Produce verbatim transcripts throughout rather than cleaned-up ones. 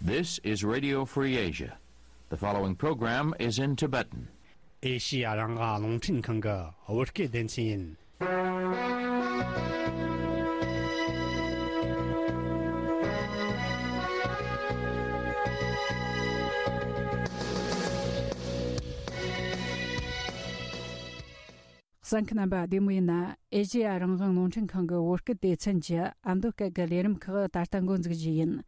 This is Radio Free Asia. The following program is in Tibetan. ཨེ་ཤི་ཡ་རང་དབང་རླུང་འཕྲིན་ཁང་གི་བོད་སྐད་སྡེ་ཚན་ཡིན། གསན་མཁན་རྣམ་པ་བདེ་མོ་ཡིན་ན། ཨེ་ཤེ་ཡ་རང་དབང་རླུང་འཕྲིན་ཁང་གི་བོད་སྐད་སྡེ་ཚན་གྱི་ཨ་མདོ་སྐད་ཀྱི་ལས་རིམ་ཁག་ད་ལྟ་འགོ་འཛུགས་རྒྱུ་ཡིན།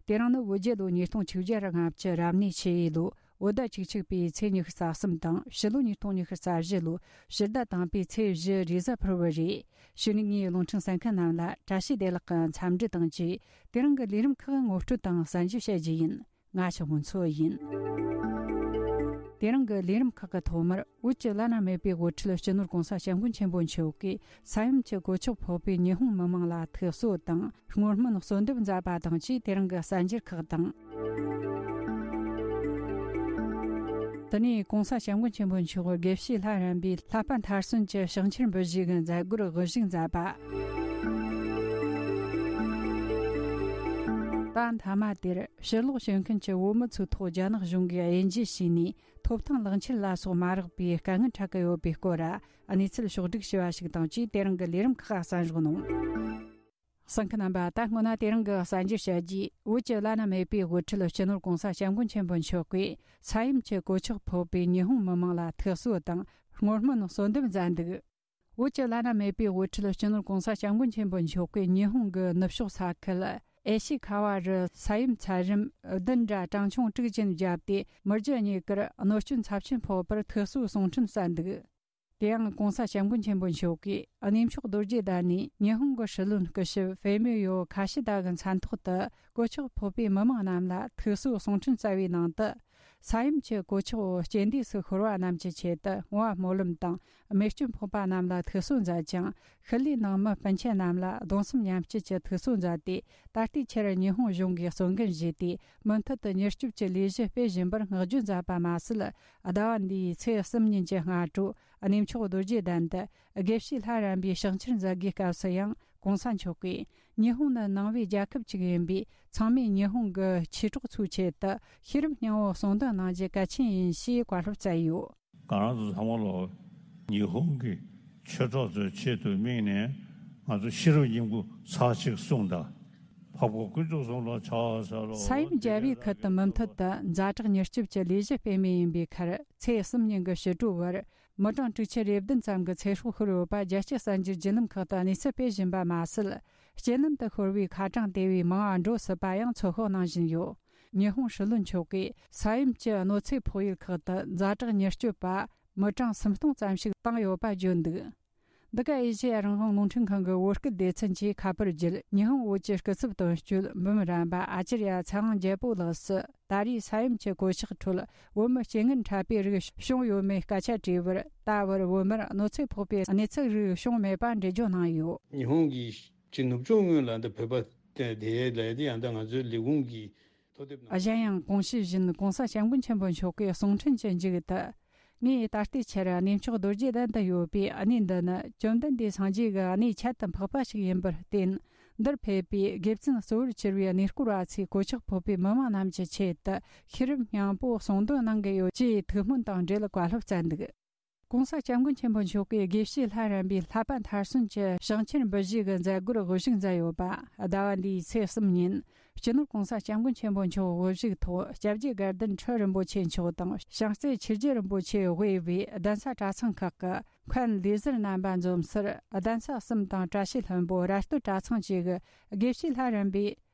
དེ་རིང་ནི་བོད་རྒྱལ་ལོ་ཉིས་སྟོང་ཆིག་བརྒྱ་ལྔ་བཅུ་རབ་གནས་ཆུ་ཡོས་ལོ་བོད་ཟླ་བཅུ་གཅིག་པའི་ཚེས་ཉི་ཤུ་རྩ་གསུམ་དང་། ཕྱི་ལོ་ཉིས་སྟོང་ཉི་ཤུ་རྩ་བཞི་ལོ་ཕྱི་ཟླ་དང་པོའི་ཚེས་བཞི་རེས་གཟའ་ཕུར་བུ་རེད། གཞུག་ནས་ངས་རླུང་འཕྲིན་གསན་མཁན་རྣམས་ལ་བཀྲ་ཤིས་བདེ་ལེགས་ཀྱི་འཚམས་འདྲི་དང་བཅས། དེ་རིང་གི་ལས་རིམ་ཁག་ངོ་སྤྲོད་དང་གསན་བརྗོད་བྱ་རྒྱུ་ཡིན། ང་ཞའོ་ཧུན་མཚོ་ཡིན། དེ་རིང་གི་ལས་རིམ་ཁག་གི་ཐོག་མར། བོད་ཀྱི་བླ་ན་མེད་པའི་དབུ་ཁྲིད་སྤྱི་ནོར་༸གོང་ས་༸སྐྱབས་མགོན་ཆེན་པོ་མཆོག་གིས་ས་ཡོམ་གྱི་གོད་ཆག་ཕོག་པའི་ཉི་ཧོང་མི་མང་ལ་ཐུགས་གསོ་དང་། བསྔོ་སྨོན་གསོལ་འདེབས་མཛད་པ་དང་བཅས། དེ་རིང་གི་གསར་འགྱུར་ཁག་དང་། དེ་ནས་༸གོང་ས་༸སྐྱབས་མགོན་ཆེན་པོ་མཆོག་དགེ་བཤེས་ལྷ་རམས་པའི་བསླབ་པ་མཐར་སོན་གྱི་ཕྱག་འཁྱེར་འབུལ་བཞེས་ཀྱི་མཛད་སྒོར་དབུ་བཞུགས་མཛད་པ། ད་མཐའ་མ་དེར་ཕྱིར་ལོག་བྱེད་མཁན་གྱི་བོད་མི་ཚོའི་ཐོག་རྒྱ་ནག་གཞུང་གིས་དབྱེ་འབྱེད་བྱས་ནས་ཐོབ་ཐང་ལག་འཁྱེར་ལ་སོགས་མ་རག་པའི་དཀའ་ངལ་འཕྲད་ཀྱི་ཡོད་པའི་སྐོར། གནས་ཚུལ་ཕྱོགས་བསྒྲིགས་བྱས་པ་ཞིག་དང་བཅས། དེ་རིང་གི་ལས་རིམ་ཁག་གསན་རོགས་གནང་། གསན་མཁན་རྣམ་པ། ད་སྔོན་ན་དེ་རིང་གི་གསར་འགྱུར་བཤད་རྒྱུས། བོད་ཀྱི་བླ་ན་མེད་པའི་དབུ་ཁྲིད་སྤྱི་ནོར་༸གོང་ས་༸སྐྱབས་མགོན་ཆེན་པོ་མཆོག་གིས་ས་ཡོམ་གྱི་གོད་ཆག་ཕོག་པའི་ཉི་ཧོང་མི་མང་ལ་ཐུགས་གསོ་དང་བསྔོ་སྨོན་གསོལ་འདེབས་མཛད་འདུག་བོད་ཀྱི་བླ་ན་མེད་པའི་དབུ་ཁྲིད་སྤྱི་ནོར་༸གོང་ས་༸སྐྱབས་མགོན་ཆེན་པོ་མཆོག་གིས་ཉི་ཧོང་གི་ནུབ་ཕྱོགས་ས་ཁུལ་ཨེ་ཤི་ཁ་བ་རུ་ས་ཡོམ་ཚད་རིམ་བདུན་དྲ་གྲངས་ཆུང་དྲུག་ཅན་བརྒྱབ་སྟེ། མི་རྒྱུ་གཉིས་ཀར་གནོད་སྐྱོན་ཚབས་ཆེན་ཕོག་པར་ཐུགས་གསོ་གསུང་འཕྲིན་བསྩལ་འདུག་དེ་ཡང་༸གོང་ས་༸སྐྱབས་མགོན་ཆེན་པོ་མཆོག་གིས་གནས་མཆོག་རྡོ་རྗེ་གདན་ནས་ཉི་ཧོང་གི་སྲིད་བློན་སྐུ་ཞབས་ཧྥེ་མི་ཡོ་ཁ་ཤི་ད་གི་མཚན་ཐོག་ཏུ་གོད་ཆག་ཕོག་པའི་མི་མང་རྣམས་ལ་ཐུགས་གསོ་གསུང་འཕྲིན་བསྩལ་བའི་ནང་དུ། ས་ཡོམ་གྱི་གོད་ཆག་འོག་རྐྱེན་འདས་སུ་ཤོར་བ་རྣམས་ཀྱི་ཆེད་དུ་བསྔོ་བ་སྨོན་ལམ་དང་། རྨས་སྐྱོན་ཕོག་པ་རྣམས་ལ་ཐུགས་གསོ་མཛད་ཅིང་། ཤུལ་ལུས་ནང་མི་སྤུན་མཆེད་རྣམས་ལ་གདུང་སེམས་མཉམ་སྐྱེད་ཀྱི་ཐུགས་གསོ་མཛད་དེ། ད་ལྟའི་ཆར་ཉི་ཧོང་གཞུང་གིས་གསོལ་འགན་བཞེས་ཏེ། མུ་མཐུད་དུ་མྱུར་སྐྱོབ་ཀྱི་ལས་གཞི་སྤེལ་བཞིན་པར་བསྔགས་བརྗོད་མཛད་པ་མ་ཟད། ཟླ་བ་འདིའི་ཚེས་གསུམ་ཉིན་གྱི་སྔ་དྲོ། གནས་མཆོག་རྡོ་རྗེ་གདན་དུ་དགེ་བཤེས་ལྷ་རམས་པའི་ཕྱག་འཁྱེར་མཛད་སྒོའི་སྐབས་སུ་ཡང་། ༸གོང་ས་མཆོག་གིས་ཉི་ཧོང་ནི་ནང་པའི་རྒྱལ་ཁབ་ཅིག་ཡིན་པས། ཚང་མས་ཉི་ཧོང་གི་ཆོས་གྲོགས་ཚོའི་ཆེད་དུ་ཤེས་རབ་སྙིང་པོ་གསུང་འདོན་གནང་རྒྱུ་གལ་ཆེན་ཡིན་ཞེས་བཀའ་སློབ་སྩལ་ཡོད། ང་རང་ཚོ་ཚང་མ་ལོ། ཉི་ཧོང་གི་ཆོས་གྲོགས་ཚོའི་ཆེད་དུ་དམིགས་ནས་ང་ཚོ་ཤེས་རབ་སྙིང་པོ་ཚར་གཅིག་གསུངས་དང་། འཕགས་པ་དཀོན་མཆོག་གསུམ་ལ་ཕྱག་འཚལ་ལོ། ས་ཡོམ་བརྒྱབ་པའི་ཁུལ་དུ་མུ་མཐུད་དུ་ཛ་དྲག་མྱུར་སྐྱོབ་ཀྱི་ལས་གཞི་སྤེལ་མུས་ཡིན་པའི་ཁར། ཚེས་གསུམ་ཉིན་གྱི་ཕྱི་དྲོའི་བར། མི་གྲངས་དྲུག་ཅུ་རེ་བདུན་ཙམ་གྱི་ཚེ་སྲོག་ཤོར་ཡོད་པ་རྒྱལ་སྤྱིའི་གསར་འགྱུར་བརྒྱུད་ལམ་ཁག་ཏུ་གནས་ཚུལ་སྤེལ་བཞིན་པ་མ་ཟད། རྐྱེན་ལམ་དུ་ཤོར་བའི་ཁ་གྲངས་དེ་བས་མང་བ་འགྲོ་སྲིད་པ་ཡང་ཚོད་དཔག་གནང་བཞིན་ཡོད། ཉི་ཧོང་སྲིད་བློན་མཆོག་གིས་ས་ཡོམ་གྱི་གནོད་འཚེ་ཕོག་ཡུལ་ཁག་ཏུ་ཛ་དྲག་མྱུར་སྐྱོབ་པ་མི་གྲངས་སུམ་སྟོང་ཙམ་ཞིག་བཏང་ཡོད་པ་བརྗོད་འདུག་འདི་ག་ཨེ་ཤེ་ཡ་རང་དབང་རླུང་འཕྲིན་ཁང་གི་བོད་སྐད་སྡེ་ཚན་གྱིས་ཁ་པར་བརྒྱུད། ཉི་ཧོང་བོད་ཀྱི་སྐུ་ཚབ་དོན་གཅོད་འབུམ་རམས་པ་ཨ་ཅར་ཡ་ཚེ་དབང་རྒྱལ་པོ་ལགས་སུ། ད་རེས་ས་ཡོམ་གྱི་གོད་ཆག་ཁྲོད་བོད་མི་རྐྱེན་ངན་འཕྲད་པའི་རིགས་བྱུང་ཡོད་མེད་སྐད་ཆ་དྲིས་པར། ད་བར་བོད་མིར་གནོད་འཚེ་ཕོག་པའི་གནས་ཚུལ་རིགས་བྱུང་མེད་པ་འགྲེལ་བརྗོད་གནང་ཡོད། ཉི་ཧོང་གི་ཅིག་ནུབ་ཕྱོགས་ངོས་ལ་འདི་བོད་པ་དེ་ལ་དེ་ཡང་ད་ང་ཚོའི་ལས་ཁུངས་ཀྱི་ཐུགས་དེབ་ནང་། གཞན་ཡང་གོང་ཞུས་བཞིན་༸གོང་ས་༸སྐྱབས་མགོན་ཆེན་པོ་མཆོག་གིས་གསུང་འཕྲིན་གྱི་མཇུག་ཏུ། ངས་ད་ལྟའི་ཆར་གནས་མཆོག་རྡོ་རྗེ་གདན་དུ་ཡོད་པའི་གནས་འདི་ནི་བཅོམ་ལྡན་འདས་སངས་རྒྱས་ཀྱི་གནས་ཁྱད་དུ་འཕགས་པ་ཞིག་ཡིན་པར་བརྟེན། འདིར་ཕེབས་པའི་དགེ་བཙུན་གཙོ་བོར་གྱུར་པའི་གནས་སྐོར་བ་ཚོས་གོད་ཆག་ཕོག་པའི་མི་མང་རྣམས་ཀྱི་ཆེད་དུ་ཤེས་རབ་སྙིང་པོ་གསུང་འདོན་གནང་གི་ཡོད་ཅེས་ཐུགས་སྨོན་དང་འབྲེལ་བཀའ་སློབ་སྩལ་འདུག ༸གོང་ས་༸སྐྱབས་མགོན་ཆེན་པོ་མཆོག་གིས་དགེ་བཤེས་ལྷ་རམས་པའི་བསླབ་པ་མཐར་སོན་གྱི་ཕྱག་འཁྱེར་འབུལ་བཞེས་ཀྱི་མཛད་སྒོར་དབུ་བཞུགས་མཛད་ཡོད་པ། ཟླ་བ་འདིའི་ཚེས་གསུམ་ཉིན། སྤྱི་ནོར་༸གོང་ས་༸སྐྱབས་མགོན་ཆེན་པོ་མཆོག་དབུ་བཞུགས་ཐོག་སྐྱབས་རྗེ་དགའ་ལྡན་ཁྲི་རིན་པོ་ཆེ་མཆོག་དང་། བྱང་རྩེ་ཆོས་རྗེ་རིན་པོ་ཆེ་དབུས་པའི་གདན་ས་གྲྭ་ཚང་ཁག་གི་མཁན་ལས་ཟུར་རྣམ་པ་འཛོམས་སར། གདན་ས་གསུམ་དང་བཀྲ་ཤིས་ལྷུན་པོ་ར་སྟོད་གྲྭ་ཚང་བཅས་ཀྱི་དགེ་བཤེས་ལྷ་རམས་པའི་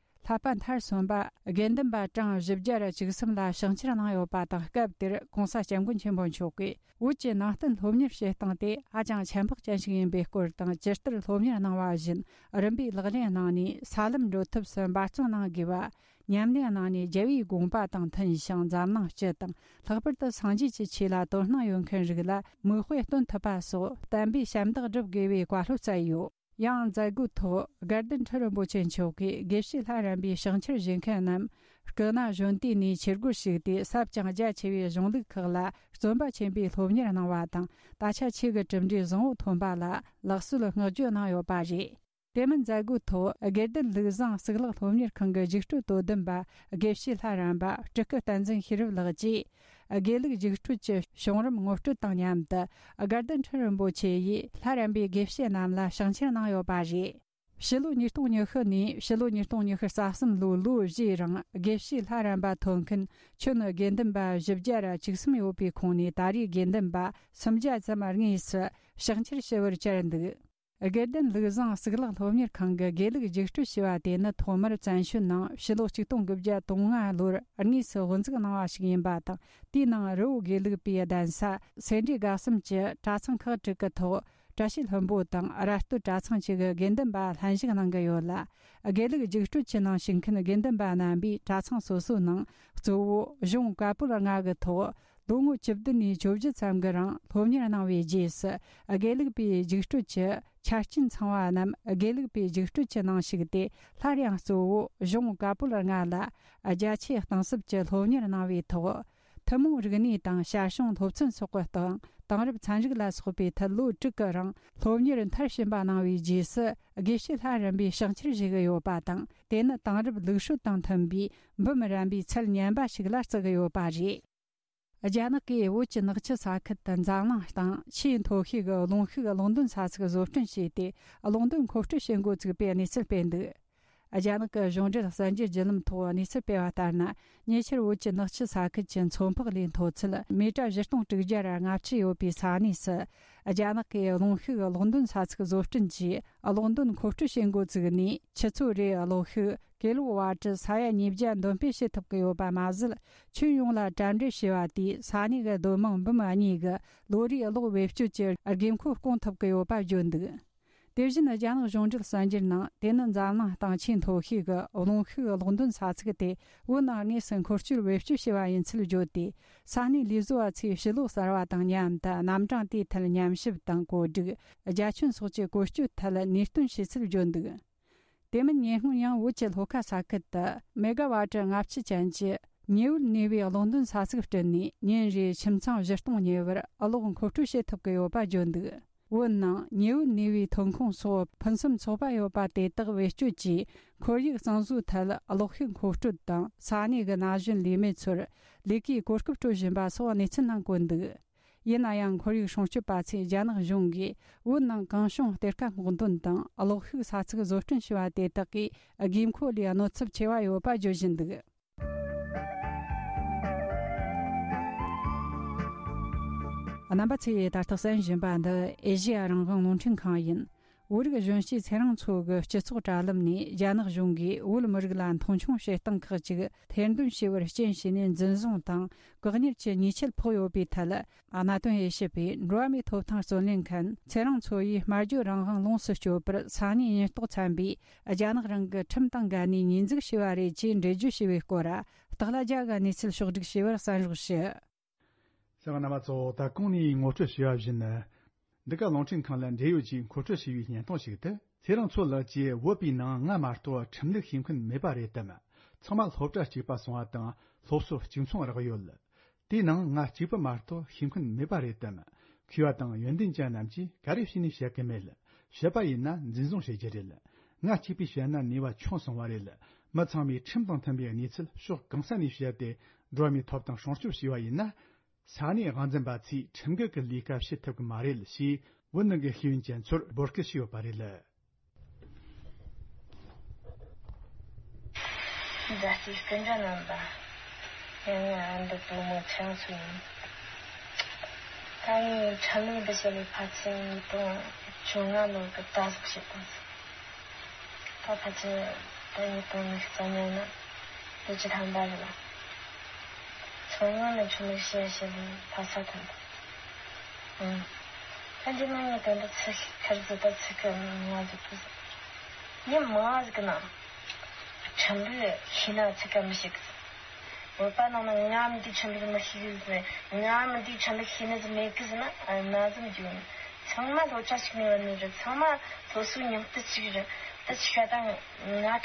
བསླབ་པ་མཐར་སོན་པ་དགེ་འདུན་པ་གྲངས་བཞི་བརྒྱ་ར་བཅུ་གསུམ་ལ་ཕྱག་འཁྱེར་གནང་ཡོད་པ་དང་། སྐབས་དེར་༸གོང་ས་༸སྐྱབས་མགོན་ཆེན་པོ་མཆོག་གིས། བོད་ཀྱི་ནང་བསྟན་སློབ་གཉེར་བྱེད་སྟངས་དེ་ཧ་ཅང་ཆ་འཕགས་ཅན་ཞིག་ཡིན་པའི་སྐོར་དང་། ཇི་ལྟར་སློབ་གཉེར་གནང་བ་བཞིན་རིམ་པས་ལག་ལེན་གནང་ནས་ས་ལམ་འགྲོ་ཐབས་སུ་འབད་བརྩོན་གནང་དགོས་པ། ཉམས་ལེན་གནང་ནས་རྒྱལ་བའི་དགོངས་པ་དང་མཐུན་ཞིང་འཛམ་གླིང་སྤྱི་དང་། ལྷག་པར་དུ་སངས་རྒྱས་ཀྱི་ཆོས་ལ་དོ་སྣང་ཡོད་མཁན་རིགས་ལ་མིག་དཔེ་སྟོན་ཐུབ་པ་སོགས་བསྟན་པའི་ཞབས་འདེགས་སྒྲུབ་དགོས་པའི་བཀའ་སློབ་སྩལ་ཡོད། ཡང་མཛད་སྒོའི་ཐོག་དགའ་ལྡན་ཁྲི་རིན་པོ་ཆེ་མཆོག་གིས་དགེ་བཤེས་ལྷ་རམས་པའི་ཕྱག་འཁྱེར་བཞེས་མཁན་རྣམས་སྐུ་ན་གཞོན་དུས་ནས་ཆོས་སྒོར་ཞུགས་ཏེ། ཟབ་ཅིང་རྒྱ་ཆེ་བའི་གཞུང་ལུགས་ཁག་ལ་བརྩོན་པ་ཆེན་པོས་སློབ་གཉེར་གནང་བ་དང་། ད་ཆ་ཆོས་ཀྱི་གྲུབ་འབྲས་བཟང་བོ་ཐོན་པ་ལ་ལེགས་གསོལ་བསྔགས་བརྗོད་གནང་ཡོད་པ་རེད། དེ་མིན་མཛད་སྒོའི་ཐོག་དགེ་ལྡན་ལུགས་བཟང་གཙུག་ལག་སློབ་གཉེར་ཁང་གི་རྒྱུགས་སྤྲོད་དོ་དམ་པ་དགེ་བཤེས་ལྷ་རམས་པ་སྤྲུལ་སྐུ་བསྟན་འཛིན་ཤེས་རབ་ལགས་ཀྱིས། དགེ་ལུགས་རྒྱུགས་སྤྲོད་ཀྱི་བྱུང་རིམ་ངོ་སྤྲོད་དང་མཉམ་དུ། དགའ་ལྡན་ཁྲི་རིན་པོ་ཆེ་ཡིས་ལྷ་རམས་པའི་དགེ་བཤེས་རྣམས་ལ་ཕྱག་འཁྱེར་གནང་ཡོད་པ་རེད། ཕྱི་ལོ་ཉིས་སྟོང་ཉི་ཤུ་ནས་ཕྱི་ལོ་ཉིས་སྟོང་ཉི་ཤུ་རྩ་གསུམ་ལོའི་ལོ་བཞིའི་རིང་དགེ་བཤེས་ལྷ་རམས་པ་ཐོབ་མཁན་ཁྱོན་དགེ་འདུན་པ་བཞི་བརྒྱ་ར་བཅུ་གསུམ་ཡོད་པའི་ཁོངས་ནས་ད་རེས་དགེ་འདུན་པ་སུམ་བརྒྱ་ཙམ་དངོས་སུ་ཕྱག་འཁྱེར་ཞུ་བར་བཅར་འདུག་དགེ་ལྡན་ལུགས་བཟང་གཙུག་ལག་སློབ་གཉེར་ཁང་གི་དགེ་ལུགས་རྒྱུགས་སྤྲོད་ཞེས་པ་དེ་ནི་ཐོག་མར་བཙན་བྱོལ་ནང་ཕྱི་ལོ་ཆིག་སྟོང་དགུ་བརྒྱ་དོན་ལྔ་ལོར་དངོས་སུ་དབུ་འཛུགས་གནང་བ་ཞིག་ཡིན་པ་དང་། དེའི་ནང་རི་བོ་དགེ་ལུགས་པའི་གདན་ས་སེ་འབྲས་དགའ་གསུམ་གྱི་གྲྭ་ཚང་ཁག་དྲུག་གི་ཐོག་བཀྲ་ཤིས་ལྷུན་པོ་དང་ར་སྟོད་གྲྭ་ཚང་བཅས་ཀྱི་དགེ་འདུན་པ་ལྷན་ཞུགས་གནང་གི་ཡོད་ལ། དགེ་ལུགས་རྒྱུགས་སྤྲོད་ཀྱི་ནང་ཞུགས་མཁན་དགེ་འདུན་པ་རྣམ་པས་གྲྭ་ཚང་སོ་སོའི་ནང་གཙོ་བོ་གཞུང་བཀའ་པོད་ལྔ་གི་ཐོག་ལོ་ངོ་བཅུ་བདུན་ནས་བཅོ་བརྒྱད་ཙམ་གྱི་རིང་སློབ་གཉེར་གནང་བའི་རྗེས་སུ། དགེ་ལུགས་པའི་རྒྱུགས་སྤྲོད་ཀྱི་ཆ་རྐྱེན་ཚང་བ་རྣམས་དགེ་ལུགས་པའི་རྒྱུགས་སྤྲོད་ཀྱི་ནང་ཞུགས་ཏེ། སླར་ཡང་གཙོ་བོ་གཞུང་བཀའ་པོད་ལྔ་ལ་རྒྱ་ཆེའི་གཏིང་ཟབ་ཀྱི་སློབ་གཉེར་གནང་བའི་ཐོག་ཐུན་མོང་རིག་གནས་དང་ཞར་བྱུང་སློབ་ཚན་སོགས་ཀྱི་སྟེང་དེང་རབས་ཚན་རིག་ལ་སོགས་པའི་ཐད་ལོ་དྲུག་གི་རིང་སློབ་གཉེར་མཐར་ཕྱིན་པ་གནང་བའི་རྗེས་སུ། དགེ་བཤེས་ལྷ་རམས་པའི་ཕྱག་འཁྱེར་ཞུ་གི་ཡོད་པ་དང་། དེ་ནི་དེང་རབས་ལུགས་སྲོལ་དང་མཐུན་པའི་འབུམ་རམས་པའི་ཚད་ཉམས་པ་ཞིག་ལ་བརྩི་གི་ཡོད་པ་རེད། རྒྱ་ནག་གིས་བོད་ཀྱི་ནག་ཆུ་ས་ཁུལ་དུ་འཛམ་གླིང་སྟེང་ཆེས་མཐོ་ཤོས་ཀྱི་རླུང་ཤུགས་གློག་འདོན་ས་ཚིགས་བཟོ་སྐྲུན་བྱས་ཏེ། གློག་འདོན་མཁོ་སྤྲོད་བྱེད་འགོ་བཙུགས་པའི་གནས་ཚུལ་སྤེལ་འདུག་རྒྱ་ནག་གི་གཞུང་འབྲེལ་གསར་འགྱུར་བརྒྱུད་ལམ་ཐོག་གནས་ཚུལ་སྤེལ་བ་ལྟར་ན། ཉེ་ཆར་བོད་ཀྱི་ནག་ཆུ་ས་ཁུལ་གྱི་མཚོ་འཕགས་ལའི་མཐོ་ཚད་མི་ཊར་བཞི་སྟོང་དྲུག་བརྒྱ་ར་ལྔ་བཅུ་ཡོད་པའི་ས་གནས་སུ། རྒྱ་ནག་གིས་རླུང་ཤུགས་གློག་འདོན་ས་ཚིགས་བཟོ་སྐྲུན་གྱིས་གློག་འདོན་མཁོ་སྤྲོད་བྱེད་འགོ་བཙུགས་ནས། ཆུ་ཚོད་རེའི་གློག་ཤུགས་ཀི་ལོ་ཝ་ཊི་ས་ཡ་ཉིས་བརྒྱ་འདོན་སྤེལ་བྱེད་ཐུབ་ཀྱི་ཡོད་པ་མ་ཟད། ཁྱོན་ཡོངས་ལ་གྲ་སྒྲིག་བྱས་པ་དེས་ས་གནས་ཀྱི་སྡོད་དམངས་འབུམ་གཉིས་ཀྱི་ལོ་རེའི་གློག་བེད་སྤྱོད་ཀྱི་དགོས་མཁོ་སྐོང་ཐུབ་ཀྱི་ཡོད་པ་བརྗོད་འདུག་དེ་བཞིན་རྒྱ་ནག་གཞུང་འབྲེལ་གསར་འགྱུར་ནང་། དེ་ནི་འཛམ་གླིང་སྟེང་ཆེས་མཐོ་ཤོས་ཀྱི་རླུང་ཤུགས་གློག་འདོན་ས་ཚིགས་ཏེ། བོད་ནང་དངོས་སུ་འཁོར་སྐྱོད་བེད་སྤྱོད་བྱས་པ་ཡིན་ཚུལ་བརྗོད་དེ། ས་གནས་ལས་བཟོ་བ་ཚོས་ཕྱི་ལོགས་གསར་བ་དང་མཉམ་དུ་རྣམ་གྲངས་དེའི་ཐད་ཉམས་ཞིབ་དང་བཀོད་སྒྲིག་རྒྱ་ཁྱོན་སོགས་ཀྱི་བཀོལ་སྤྱོད་ཐད་ནུས་སྟོན་བྱས་ཚུལ་བརྗོད་འདུག་དེ་མིན་ཉེ་སྔོན་ཡང་བོད་ཀྱི་ལྷོ་ཁ་ས་ཁུལ་དུ་མེ་ག་ཝ་ཊི་ལྔ་བཅུ་ཅན་གྱི་ཉི་འོད་ནུས་པའི་གློག་འདོན་ས་ཚིགས་བསྐྲུན་ནས། ཉིན་རེའི་ཁྱིམ་ཚང་བཞི་སྟོང་ཉེ་བར་གློག་མཁོ་སྤྲོད་བྱེད་ཐུབ་ཀྱི་ཡོད་པ་བརྗོད་འདུག་བོད་ནང་ཉི་འོད་ནུས་པའི་ཐོན་ཁུངས་སོགས་ཕུན་སུམ་ཚོགས་པ་ཡོད་པ་དེ་དག་བེད་སྤྱོད་ཀྱིས། ཁོར་ཡུག་གཙང་བཟོའི་ཐད་གློག་ཤུགས་མཁོ་སྤྲོད་དང་། ས་གནས་ཀྱི་ན་གཞོན་ལས་མེད་ཚོར་ལས་ཀའི་གོ་སྐབས་སྤྲོད་བཞིན་པ་སོགས་གནས་ཚུལ་ནང་བཀོད་འདུག་ཡིན་ན་ཡང་། ཁོར་ཡུག་སྲུང་སྐྱོབ་པ་ཚོས་རྒྱ་ནག་གཞུང་གིས་བོད་ནང་གང་བྱུང་གཏེར་ཁ་སྔོག་འདོན་དང་། གློག་ཤུགས་ས་ཚིགས་བཟོ་སྐྲུན་བྱས་པ་དེ་དག་གིས་དགོས་མཁོ་ལས་གནོད་ཚབས་ཆེ་བ་ཡོད་པ་བརྗོད་བཞིན་འདུག་རྣམ་པ་ཚོས་ད་ལྟ་གསན་བཞིན་པ་འདི་ཨེ་ཤེ་ཡ་རང་དབང་རླུང་འཕྲིན་ཁང་ཡིན། བོད་རིགས་གཞོན་སྐྱེས་ཚེ་རིང་མཚོ་གི་སྤྱི་ཚོགས་དྲ་ལམ་ནས། རྒྱ་ནག་གཞུང་གིས་བོད་མི་རིགས་ལ་མཐོང་ཆུང་བྱེད་སྟངས་ཁག་ཅིག་ཐེར་འདོན་བྱས་པར་རྐྱེན་བྱས་ནས་འཛིན་བཟུང་དང་བཀག་ཉར་གྱི་ཉེས་ཆད་ཕོག་ཡོད་པའི་ཐད། གནད་དོན་དབྱེ་ཞིབ་པས་འགྲོ་བ་མིའི་ཐོབ་ཐང་རྩོད་ལེན་མཁན་ཚེ་རིང་མཚོ་ཡིས་སྨྲ་བརྗོད་རང་དབང་ལོངས་སུ་སྤྱོད་པར་ས་གནས་ཉེན་རྟོག་ཚན་པས་རྒྱ་ནག་རང་གི་ཁྲིམས་དང་འགལ་ནས་ཉེས་འཛུགས་བྱས་པ་རེད་ཅེས་འགྲེལ་བརྗོད་བྱས་པའི་སྐོར། སྟག་ལྷ་རྒྱལ་གྱིས་གནས་ཚུལ་ཕྱོགས་བསྒྲིགས་བྱས་པར་གསན་རོགས་ཞུ། གསན་པ་རྣམ་པ་ཚོ། ད་གོང་ནས་ངོ་སྤྲོད་བྱས་པ་བཞིན། འདི་ག་རླུང་འཕྲིན་ཁང་ལ་འབྲེལ་ཡོད་ཀྱིས་མཁོ་སྤྲོད་བྱས་པའི་བརྙན་ཐུང་ཞིག་སྟེ། ཚེ་རིང་མཚོ་ལགས་ཀྱིས་བོད་པའི་ནང་ང་མ་གཏོགས་ཁྲིམས་ལུགས་ཤེས་མཁན་མེད་པ་རེད་དམ། ཚང་མ་སློབ་གྲྭ་གཅིག་པ་སོང་བ་དང་སློབ་གསོ་གཅིག་མཚུངས་རག་ཡོད། དེའི་ནང་ང་གཅིག་པུ་མ་གཏོགས་ཤེས་མཁན་མེད་པ་རེད་དམ། མཁས་པ་དང་ཡོན་ཏན་ཅན་རྣམས་ཀྱིས་ག་རེ་བྱས་ནས་བཤད་གི་མེད། བཤད་པ་ཡིན་ན་འཛིན་བཟུང་བྱེད་རྒྱུ་རེད། ང་གཅིག་པུས་བཤད་ན་ནུས་པ་ཆུང་སོང་བ་རེད། མི་ཚང་མས་ཁྲིམས་དང་མཐུན་པའི་གནས་ཚུལ་ཕྱོགས་གང་ས་ནས་བཤད་དེ་འགྲོ་བ་མིའི་ཐོབ་ཐང་སྲུང་སྐྱོབ་བྱས་པ་ཡིན་ན། ས་གནས་དབང་འཛིན་པ་ཚོས་ཁྲིམས་འགལ་གྱི་ལས་ཀ་བྱེད་ཐུབ་ཀྱི་མ་རེད་ཞེས་བོད་ནང་གི་ཤེས་ཡོན་ཅན་ཚོར་འབོད་སྐུལ་བྱས་ཡོད་པ་རེད། མཛའ་བརྩེའི་སྐུ་མགྲོན་རྣམ་པ། ཡང་ང་འདི་བུ་མོ་ཚེ་རིང་མཚོ་ཡིན། ད་ངས་ཁྲིམས་ལུགས་འདི་བཤད་པའི་ཕལ་ཆེར་ཉིས་སྟོང་བཅོ་ལྔ་ལོ་གི་ད་གཟོད་བཤད་དང་། ད་ཕལ་ཆེར་ད་ཉིས་སྟོང་ཉི་ཤུ་རྩ་ལྔ་ནི་ལོ་བཅུ་ཐམ་པ་རེད་ལ། མཚོ་སྔོན་ནས་ཁྲིམས་ལུགས་བཤད་བཤད་པའི་ཕ་ས་ཐོན་པ། ཨང་། ད་འདི་ནང་ངས་དོན་དུ་ཚིག་ཁར་ཟིག་ད་ཚིག་གི་ང་ཟིག་པོ་ཟིག་ཡིན་མ་ཟིག་གི་ན། ཁྲིམས་ལུགས་ཤེས་ན་ཚིག་ག་མི་ཤེས་གི་ཟིག་བོད་པ་ནང་ན་ང་མི་འདི་ཁྲིམས་ལུགས་མི་ཤེས་གི་ཟིག་ང་མི་འདི་ཁྲིམས་ལུགས་ཤེས་ནི་ཟིག་མེད་གི་ཟིག་ན་ན་ཟིག་མི་འཇུག་ཚང་མ་སློབ་གྲྭ་ཞིག་ནས་བ་ནི་རེད། ཚང་མ་སློབ་གསོའི་མྱོང་སྟེ་ཅིག་རེད། ད་ཅིག་ཤ་ད་ང་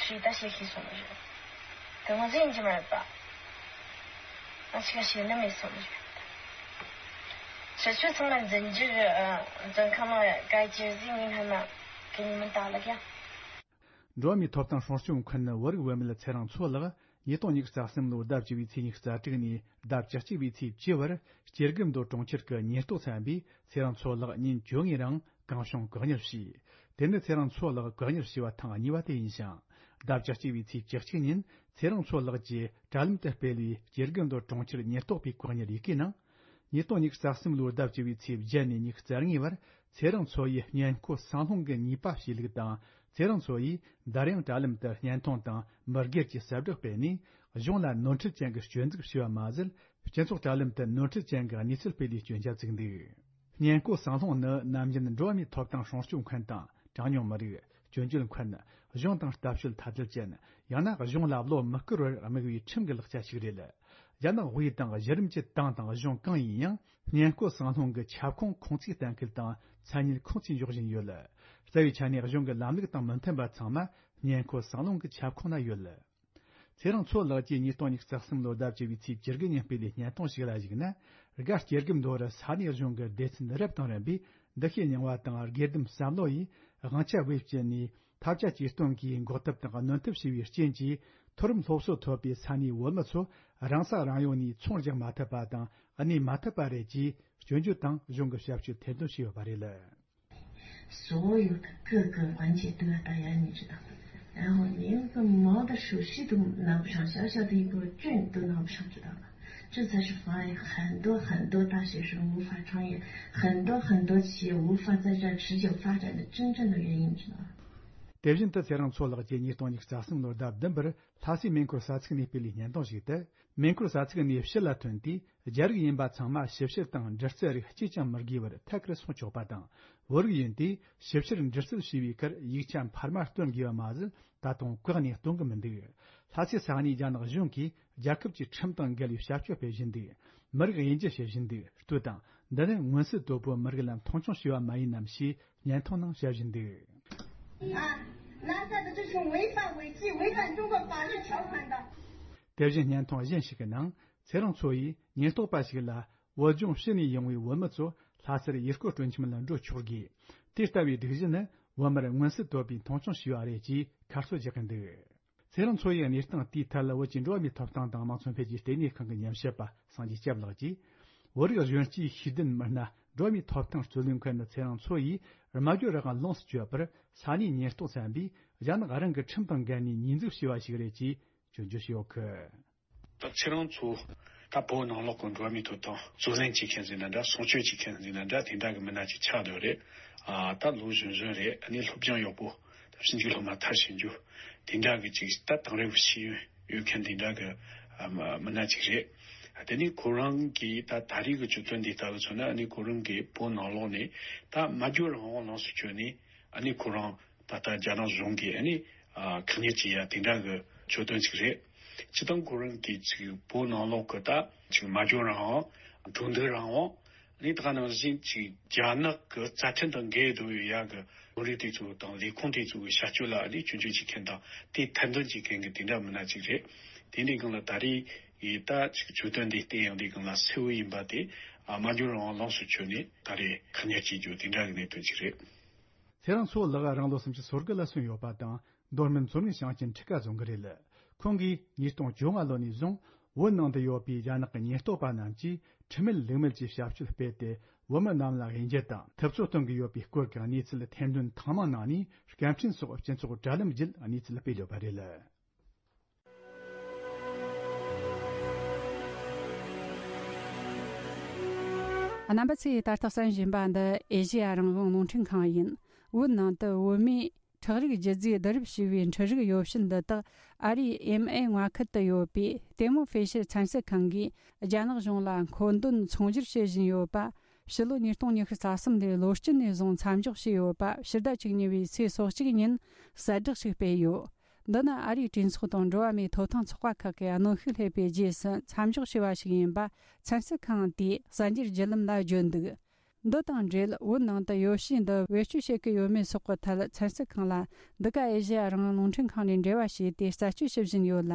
ཁྲིད་ད་བཤད་ཤེས་སོང་ནི་རེད། དེ་ང་ཟིག་ཡིན་གྱི་མ་རེད་པ། ང་ཅིག་བཤད་ནི་མེད་སོང་ནི་རེད། ཁྱེད་ཚོ་ཚང་མ་འཛིན་རྒྱུ་རེད། འཛིན་ཁང་ནང་ག་ཅི་ཟིག་ཡིན་ཧ་ན་གི་ཉི་མ་ད་ལ་ཀྱང་། འགྲོ་བ་མིའི་ཐོབ་ཐང་སྲུང་སྐྱོབ་མཁན་བོད་རིགས་བུད་མེད་ཚེ་རིང་མཚོ་ལགས་ཉིས་སྟོང་ཉི་ཤུ་རྩ་གསུམ་ལོའི་ཟླ་བཅུ་བའི་ཚེས་ཉི་ཤུ་རྩ་དྲུག་ནས་ཟླ་བཅུ་གཅིག་པའི་ཚེས་བཅུ་བར་སྐྱེ་རྒུ་མདོ་གྲོང་ཁྱེར་གྱི་ཉེན་རྟོག་ཚན་པས་ཚེ་རིང་མཚོ་ལགས་ཉིན་བཅོ་ལྔའི་རིང་གང་བྱུང་བཀག་ཉར་བྱས། དེ་ནི་ཚེ་རིང་མཚོ་ལགས་བཀག་ཉར་བྱས་པ་ཐེངས་གཉིས་པ་དེ་ཡིན་ཞིང་། ཟླ་བཅུ་གཅིག་པའི་ཚེས་བཅུ་གཅིག་ཉིན་ཚེ་རིང་མཚོ་ལགས་ཀྱིས་དྲ་ལམ་དུ་སྤེལ་བའི་སྐྱེ་རྒུ་མདོ་གྲོང་ཁྱེར་ཉེན་རྟོག་པའི་བཀག་ཉར་ཡི་གེའི་ནང་། ཉིས་སྟོང་ཉི་ཤུ་རྩ་གསུམ་ལོའི་ཟླ་བཅུ་བའི་ཚེས་བརྒྱད་ནས་ཉི་ཤུ་རྩ་ལྔའི་བར་ཚེ་རིང་མཚོ་ཡིས་སྔོན་བརྐོས་ཟངས་སློང་གི་ནུས་པ་གཤིས་ལུགས་དང་། ཚེ་རིང་མཚོ་ཡིས་འདར་དབྱངས་དྲ་ལམ་དུ་བརྙན་ཐུང་དང་མི་སྒེར་གྱི་གསལ་བསྒྲགས་སྤེལ་ནས། གཞུང་ལ་ནོར་འཁྲུལ་ཅན་གྱི་སྐྱོན་འཛུགས་བྱས་པ་མ་ཟད། སྤྱི་ཚོགས་དྲ་ལམ་དུ་ནོར་འཁྲུལ་ཅན་གྱི་གནས་ཚུལ་སྤེལ་ནས་སྐྱོན་ཆ་བཙུགས་འདུག་སྔོན་བརྐོས་ཟངས་སློང་ནི་ནམ་རྒྱུན་འགྲོ་བ་མིའི་ཐོབ་ཐང་སྲུང་སྐྱོབ་མཁན་དང་། གྲངས་ཉུང་མི་རིགས། སྐྱོན་བརྗོད་མཁན། གཞུང་དང་ལྟ་སྤྱོད་ཐ་དད་ཅན། ཡང་ན་གཞུང་ལ་བློ་མི་བཀུར་བར་དམིགས་པའི་ཁྲིམས་ཀྱི་ལག་ཆ་ཞིག་རེད། རྒྱ་ནག་དབུས་དང་གཞི་རིམ་གྱི་ཏང་དང་གཞུང་གང་ཡིན་ཡང་། སྔོན་བརྐོས་ཟངས་སློང་གི་ཁྱབ་ཁོངས་ཁུངས་བཙུན་གཏན་འཁེལ་དང་མཚན་ཉིད་ཁུངས་བཙུན་འཇོག་བཞིན་ཡོད། རྩ་བའི་ཆ་ནས་གཞུང་གི་ལམ་ལུགས་དང་མི་མཐུན་པ་ཚང་མ་སྔོན་བརྐོས་ཟངས་སློང་གི་ཁྱབ་ཁོངས་ན་ཡོད། ཚེ་རིང་མཚོ་ལགས་ཀྱིས་ཉིས་སྟོང་ཉི་ཤུ་རྩ་གསུམ་ལོའི་ཟླ་བཅུ་བའི་ཚེས་བཅུ་དགུ་ཉིན་སྤེལ་བའི་བརྙན་ཐུང་ཞིག་ལ་གཞིགས་ན། སྒར་སྐྱེ་རྒུ་མདོ་རུ་ས་གནས་གཞུང་གི་སྡེ་ཚན་རབ་དང་རིམ་པས་འདུ་ཤེས་རྙིང་བ་དང་སྒེར་སྡེ་བསམ་བློ་ཡིས་དབང་ཆ་བེད་སྤྱད་ནས་ཐབས་ཆ་ཇུས་སྟོན་གྱིས་འགོག་ཐབས་དང་གནོན་ཐབས་བྱས་པའི་རྐྱེན་གྱིས། མཐོ་རིམ་སློབ་གསོ་ཐོབ་པའི་ས་གནས་བོད་མི་ཚོ་རང་ས་རང་ཡུལ་ནས་ཚོང་རྒྱག་མ་ཐུབ་པ་དང་གནས་མ་ཐུབ་པ་རེད་ཅེས་སྐྱོན་བརྗོད་དང་གཞུང་གི་ཞབས་ཞུ་ཐེར་འདོན་བྱས་ཡོད་པ་རེད། 所有的各个环节都要大家一起到。然后连个毛的手续都拿不上，小小的一个证都拿不上，知道吗？这才是妨碍很多很多大学生无法创业，很多很多企业无法在这儿持久发展的真正的原因，知道吗？ དེ་བཞིན་དུ་ཚེ་རིང་མཚོ་ལགས་ཀྱིས་ཉིས་སྟོང་ཉི་ཤུ་རྩ་གསུམ་ལོའི་ཟླ་བདུན་པར་ལྷ་སའི་མེ་འཁོར་ས་ཚིགས་ནས་སྤེལ་བའི་བརྙན་ཐུང་ཞིག་ཏུ། མེ་འཁོར་ས་ཚིགས་ནས་ཕྱི་ལ་ཐོན་དུས། རྒྱ་རིགས་ཡིན་པ་ཚང་མ་ཞིབ་བཤེར་དང་འདྲི་རྩད་རིགས་གཅིག་ཀྱང་མི་དགོས་པར་ཐད་ཀར་སོང་ཆོག་པ་དང་། བོད་རིགས་ཡིན་དུས་ཞིབ་བཤེར་འདྲི་རྩད་བྱས་པའི་ཁར་ཡིག་ཆ་འཕར་མ་སྟོན་དགོས་པ་མ་ཟད། ད་དུང་བཀག་ནས་གཏོང་གི་མི་འདུག་ལྷ་སའི་ས་གནས་རྒྱ་ནག་གཞུང་གིས་རྒྱལ་ཁབ་ཀྱི་ཁྲིམས་དང་འགལ་བའི་བྱ་སྤྱོད་སྤེལ་བཞིན་འདུག་མི་རིགས་དབྱེ་འབྱེད་བྱེད་བཞིན་འདུག་ལྟོས་དང་། འདི་ནི་མངོན་གསལ་དོད་པོ་མི་རིགས་ལ་མཐོང་ཆུང་བྱས་པ་མ་ཡིན་ནམ་ཞེས་བརྙན་ཐུང་ནང་བཤད་བཞིན་འདུག 啊，那他的这种违法违纪、违反中国法律条款的。 དེ་བཞིན་བརྙན་ཐུང་གཞན་ཞིག་གི་ནང་ཚེ་རིང་མཚོ་ཡིས་ཉེན་རྟོག་པ་ཞིག་ལ། བོད་ལྗོངས་ཕྱི་ནས་ཡོང་བའི་བོད་མི་ཚོ་ལྷ་སར་ཡུལ་སྐོར་སྤྲོ་འཆམ་ལ་འགྲོ་ཆོག་གི། དེ་ལྟ་བུའི་སྒྲིག་གཞི་ནི་བོད་མིར་མངོན་གསལ་དོད་པའི་མཐོང་ཆུང་བྱས་པ་རེད་ཅེས་ཁ་གསོ་རྒྱག་གི་འདུག་ཚེ་རིང་མཚོ་ཡི་གནས་སྟངས་དེའི་ཐད་ལ་བོད་ཀྱི་འགྲོ་བ་མིའི་ཐོབ་ཐང་དང་དམངས་གཙོ་འཕེལ་རྒྱས་ལྟེ་གནས་ཁང་གི་ཉམས་ཞིབ་པ་སངས་རྒྱས་སྐྱབས་ལགས་ཀྱིས། བོད་རིགས་གཞོན་སྐྱེས་ཤེས་ལྡན་མི་སྣ་འགྲོ་བ་མིའི་ཐོབ་ཐང་རྩོད་ལེན་མཁན་ཚེ་རིང་མཚོ་ཡིས་སྨྲ་བརྗོད་རང་དབང་ལོངས་སུ་སྤྱོད་པར་ས་གནས་ཉེན་རྟོག་ཚན་པས་རྒྱ་ནག་རང་གི་ཁྲིམས་དང་འགལ་ནས་ཉེས་འཛུགས་བྱས་པ་ཞིག་རེད་ཅེས་སྐྱོན་བརྗོད་བྱས་ཡོད་གི། ད་ཚེ་རིང་མཚོ་ད་བོད་ནང་ལོགས་ཀྱི་འགྲོ་བ་མིའི་ཐོབ་ཐང་རྩོད་ལེན་བྱེད་མཁན་ཟེར་ན་འདྲ། སྲུང་སྐྱོབ་བྱེད་མཁན་ཟེར་ན་འདྲ། དེ་འདྲ་གི་མི་སྣ་ཅིག་ཆགས་བསྡད་རེད། ཨ་ད་ལོ་གཞོན་གཞོན་རེད། ཨ་ནི་སློབ་སྦྱོང་ཡག་པོ། ད་ཕྱིན་ཆད་སློབ་མ་མཐར་ཕྱིན་རྒྱུ་དེ་འདྲ་གི་ཅིག་ད་དེང་རབས་ཤེས་ཡོན་ཡོད་མཁན་དེ་འདྲ་གི་ཨ་མི་སྣ་ཅིག་རེད། དེ་ནི་ཁོ་རང་གིས་ད་ད་རེས་ཀྱི་གྱོད་དོན་འདི་ལྟ་བུ་མཚོན་ན། ཨ་ནི་ཁོ་རང་གིས་བོད་ནང་ལོགས་ནས་ད་སྨྲ་བརྗོད་རང་དབང་ལོངས་སུ་སྤྱོད་ནས། ཨ་ནི་ཁོ་རང་ད་ལྟ་རྒྱ་ནག་གཞུང་གིས་ཨ་ནི་ཨ་ཁག་ཉར་བྱེད་ཡ་དེ་འདྲ་གི་གྱོད་དོན་ཅིག་རེད། སྤྱིར་བཏང་ཁོ་རང་གིས་ཅིག་བོད་ནང་ལོགས་ཀྱི་ད་ཅིག་སྨྲ་བརྗོད་རང་དབང་། གྲོས་བསྡུར་རང་དབང་། ཨ་ནི་ད་ག་ནང་བཞིན་ཅིག་རྒྱ་ནག་གི་རྩ་ཁྲིམས་དང་འགལ་འགྲོ་ཡོད་ཡ་གི་ལམ་ལུགས་དེ་ཚོ་དང་ལས་ཁུངས་དེ་ཚོ་གི་བྱ་སྤྱོད་ལ་ཨ་ནི་སྐྱོན་བརྗོད་བྱེད་མཁན་དང་དེ་ཐེར་འདོན་བྱེད་མཁན་གྱི་དེ་འདྲ་མི་སྣ་ཅིག་རེད། དེ་འདྲའི་སྒང་ལ་ད་རེས་ཡིས་ད་ཅིག་གྱོད་དོན་འདི་བལྟས་ཡོང་དུས་སྒང་ལ་གསལ་བོ་ཡིན་པ་དེ། ཨ་སྨྲ་བརྗོད་རང་དབང་ལོངས་སུ་སྤྱོད་ནས་ད་རེས་ཁག་ཉར་བྱེད་རྒྱུ་དེ་འདྲ་གི་གནད་དོན་ཅིག་རེད། ཚེ་རིང་མཚོ་ལགས་རང་ལོ་སུམ་ཅུ་སོ་དགུ་ལ་སོན་ཡོད་པ་དང་། མདོ་སྨད་མཚོ་སྔོན་ཞིང་ཆེན་ཁྲི་ཀ་རྫོང་གི་རེད། ཁོང་གིས་ཉིས་སྟོང་བཅོ་ལྔ་ལོ་ནས་བཟུང་བོད་ནང་དུ་ཡོད་པའི་རྒྱ་ནག་གི་ཉེན་རྟོག་པ་རྣམས་ཀྱིས་ཁྲིམས་མེད་ལུགས་མེད་ཀྱི་བྱ་སྤྱོད་སྤེལ་ཏེ། བོད་མི་རྣམས་ལ་དབྱེ་འབྱེད་དང་ཐུབ་ཚོད་གཏོང་གི་ཡོད་པའི་སྐོར་གྱི་གནས་ཚུལ་ཐེར་འདོན་ཐེངས་མང་གནང་ནས། སྐད་འཕྲིན་སོགས་སྤྱི་ཚོགས་དྲ་ལམ་བརྒྱུད་གནས་ཚུལ་སྤེལ་ཡོད་པ་རེད། རྣམ་པ་ཚོས་ད་ལྟ་གསན་བཞིན་པ་འདི་ཨེ་ཤེ་ཡ་རང་དབང་རླུང་འཕྲིན་ཁང་ཡིན། བོད་ནང་དུ་བོད་མིས་ཁྲག་རིགས་རྒྱུད་རྫས་བསྡུ་རུབ་བྱས་པའི་འཕྲུལ་རིག་ཡོ་བྱད་འདི་དག་ཨ་རིའི་ཨེམ་ཨེ་མངའ་ཁུལ་དུ་ཡོད་པའི་ཏེ་མོ་ཧྥེ་ཤར་ཚན་རྩལ་ཁང་གིས་རྒྱ་ནག་གཞུང་ལ་མཁོ་འདོན་ཚོང་སྒྱུར་བྱེད་བཞིན་ཡོད་པ། ཕྱི་ལོ་ཉིས་སྟོང་ཉི་ཤུ་རྩ་གསུམ་ལོའི་ལོ་དཀྱིལ་ནས་བཟུང་མཚམས་འཇོག་བྱས་ཡོད་པ། ཕྱི་ཟླ་བཅུ་གཉིས་པའི་ཚེས་སོ་གཅིག་ཉིན་གསལ་བསྒྲགས་ཤིག་སྤེལ་ཡོད། འདི་ནི་ཨ་རིའི་གྲོས་ཚོགས་དང་འགྲོ་བ་མིའི་ཐོབ་ཐང་ཚོགས་པ་ཁག་གིས་གནོན་ཤུགས་སླེབས་པའི་རྗེས་སུ་མཚམས་འཇོག་བྱས་པ་ཞིག་ཡིན་པ་ཚན་རྩལ་ཁང་དེས་གསར་འགྱུར་བརྒྱུད་ལམ་ལ་བརྗོད་འདུག་འདི་དང་འབྲེལ་བོད་ནང་དུ་ཡོ་བྱད་འདི་བེད་སྤྱོད་བྱེད་ཀྱི་ཡོད་མེད་སོགས་ཀྱི་ཐད་ཚན་རྩལ་ཁང་ལ་འདི་ག་ཨེ་ཤེ་ཡ་རང་དབང་རླུང་འཕྲིན་ཁང་ནས་འབྲེལ་བ་བྱས་ཏེ་རྩད་གཅོད་བྱེད་བཞིན་ཡོད་ལ།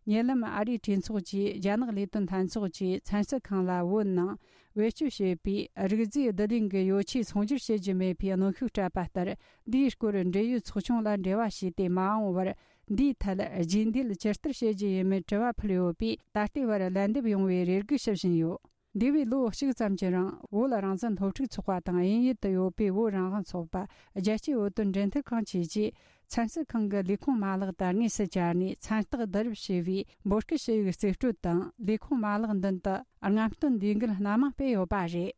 ཉེ་ལམ་ཨ་རིའི་གྲོས་ཚོགས་ཀྱིས་རྒྱ་ནག་ལས་དོན་ལྷན་ཚོགས་ཀྱི་ཚན་རྩལ་ཁང་ལ་བོད་ནང་བེད་སྤྱོད་བྱེད་པའི་རིག་རྫས་བསྡུ་ལེན་གྱི་ཡོ་ཆས་ཚོང་སྒྱུར་བྱེད་རྒྱུ་མེད་པའི་གནོན་ཤུགས་སྤྲད་པ་ལྟར། འདིའི་སྐོར་འབྲེལ་ཡོད་ཚོགས་ཆུང་ལ་འབྲེལ་བ་བྱས་ཏེ་མ་འོངས་བར་འདིའི་ཐད་རྗེས་འདེད་ཇི་ལྟར་བྱེད་རྒྱུ་ཡིན་མིན་དྲི་བ་ཕུལ་ཡོད་པས། ད་ལྟའི་བར་ལན་འདེབས་ཡོང་བའི་རེ་སྒུག་ཞུ་བཞིན་ཡོད། འདས་པའི་ལོ་གཅིག་ཙམ་གྱི་རིང་བོད་རང་བཙན་སློབ་ཕྲུག་ཚོགས་པ་དང་དབྱིན་ཡུལ་དུ་ཡོད་པའི་བོད་རང་དབང་ཚོགས་པ། རྒྱལ་སྤྱིའི་བོད་དོན་འབྲེལ་མཐུད་ཁང་བཅས་ཀྱིས་ཚན་རྩལ་ཁང་གི་ལས་ཁུངས་མ་ལག་ཏུ་དངོས་སུ་བཅར་ནས་མཚན་རྟགས་བསྡུ་རུབ་བྱས་པའི་འབོད་སྐུལ་ཞུ་ཡིག་རྩིས་སྤྲོད་དང་། ལས་ཁུངས་མ་ལག་མདུན་དུ་རྔམ་སྟོན་ལས་འགུལ་སྣ་མང་སྤེལ་ཡོད་པ་རེད།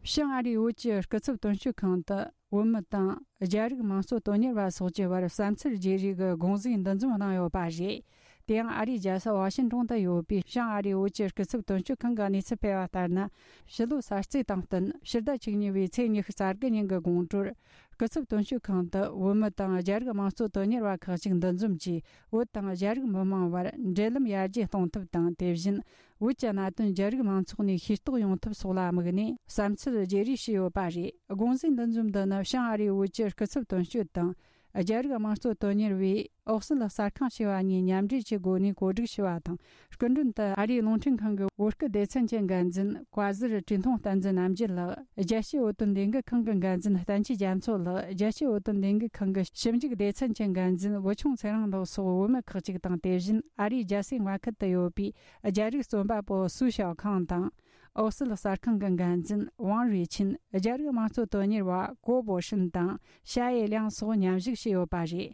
བྱང་ཨ་རིའི་བོད་ཀྱི་སྐུ་ཚབ་དོན་གཅོད་ཁང་དུ་བོད་མི་དང་རྒྱ་རིགས་མང་གཙོ་དོན་གཉེར་བ་སོགས་ཀྱི་བར་བསམ་ཚུལ་བརྗེ་རེས་ཀྱི་དགོངས་ཟིན་འདུ་འཛོམས་གནང་ཡོད་པ་རེད། དེ་ཡང་ཨ་རིའི་རྒྱལ་ས་ཝ་ཤིང་ཏོང་དུ་ཡོད་པའི་བྱང་ཨ་རིའི་བོད་ཀྱི་སྐུ་ཚབ་དོན་གཅོད་ཁང་གིས་གནས་ཚུལ་སྤེལ་བ་ལྟར་ན། ཕྱི་ལོ་གསར་ཚེས་དང་བསྟུན་ཕྱི་ཟླ་བཅུ་གཉིས་པའི་ཚེས་ཉི་ཤུ་རྩ་དགུ་ཉིན་གྱི་དགོང་དྲོར། སྐུ་ཚབ་དོན་གཅོད་ཁང་དུ་བོད་མི་དང་རྒྱ་རིགས་དམངས་གཙོ་དོན་གཉེར་བ་ཁག་ཅིག་འདུ་འཛོམས་ཀྱིས། བོད་དང་རྒྱ་རིགས་མི་མང་བར་འབྲེལ་ལམ་ཡར་རྒྱས་གཏོང་ཐབས་དང་། དེ་བཞིན་བོད་ཀྱི་གནད་དོན་རྒྱ་རིགས་མང་ཚོགས་ནས་ཤེས་རྟོགས་ཡོང་ཐབས་སོགས་ལ་དམིགས་ནས་བསམ་ཚུལ་བརྗེ་རེས་བྱས་ཡོད་པ་རེད། དགོངས་ཟིན་འདུ་འཛོམས་འདི་ནི་བྱང་ཨ་རིའི་བོད་ཀྱི་སྐུ་ཚབ་དོན་གཅོད་དང་། རྒྱ་རིགས་དམངས་གཙོ་དོན་གཉེར་བས་ཨོ་སི་ལི་གསར་ཁང་ཞེས་པ་གཉིས་མཉམ་འབྲེལ་གྱིས་འགོ་ནས་གོ་སྒྲིག་ཞུས་པ་དང་། སྐུ་མགྲོན་དུ་ཨ་རིའི་རླུང་འཕྲིན་ཁང་གི་བོད་སྐད་སྡེ་ཚན་གྱི་འགན་འཛིན་བཀའ་ཟུར་བཀྲས་མཐོང་བསྟན་འཛིན་རྣམ་རྒྱལ་ལགས། རྒྱལ་སྤྱིའི་བོད་དོན་ལས་འགུལ་ཁང་གི་འགན་འཛིན་བསྟན་ཆོས་རྒྱ་མཚོ་ལགས། རྒྱལ་སྤྱིའི་བོད་དོན་ལས་འགུལ་ཁང་གི་ཞིབ་འཇུག་སྡེ་ཚན་གྱི་འགན་འཛིན་བུ་ཆུང་ཚེ་རིང་ལགས་སོགས་བོད་མི་ཁག་ཅིག་དང་། དེ་བཞིན་ཨ་རིའི་རྒྱལ་སའི་མངའ་ཁུལ་དུ་ཡོད་པའི་རྒྱ་རིགས་རྩོམ་པ་པོ་སུའུ་ཞའོ་ཁང་དང་། ཨོ་སི་ལི་གསར་ཁང་གི་འགན་འཛིན་ཝང་རུས་ཆིན། རྒྱ་རིགས་དམངས་གཙོ་དོན་གཉེར་བ་གོ་པོ་ཧྲིན་དང་ཞ་ཡེ་ལིང་སོགས་མཉམ་ཞུགས་བྱས་ཡོད་པ་རེད།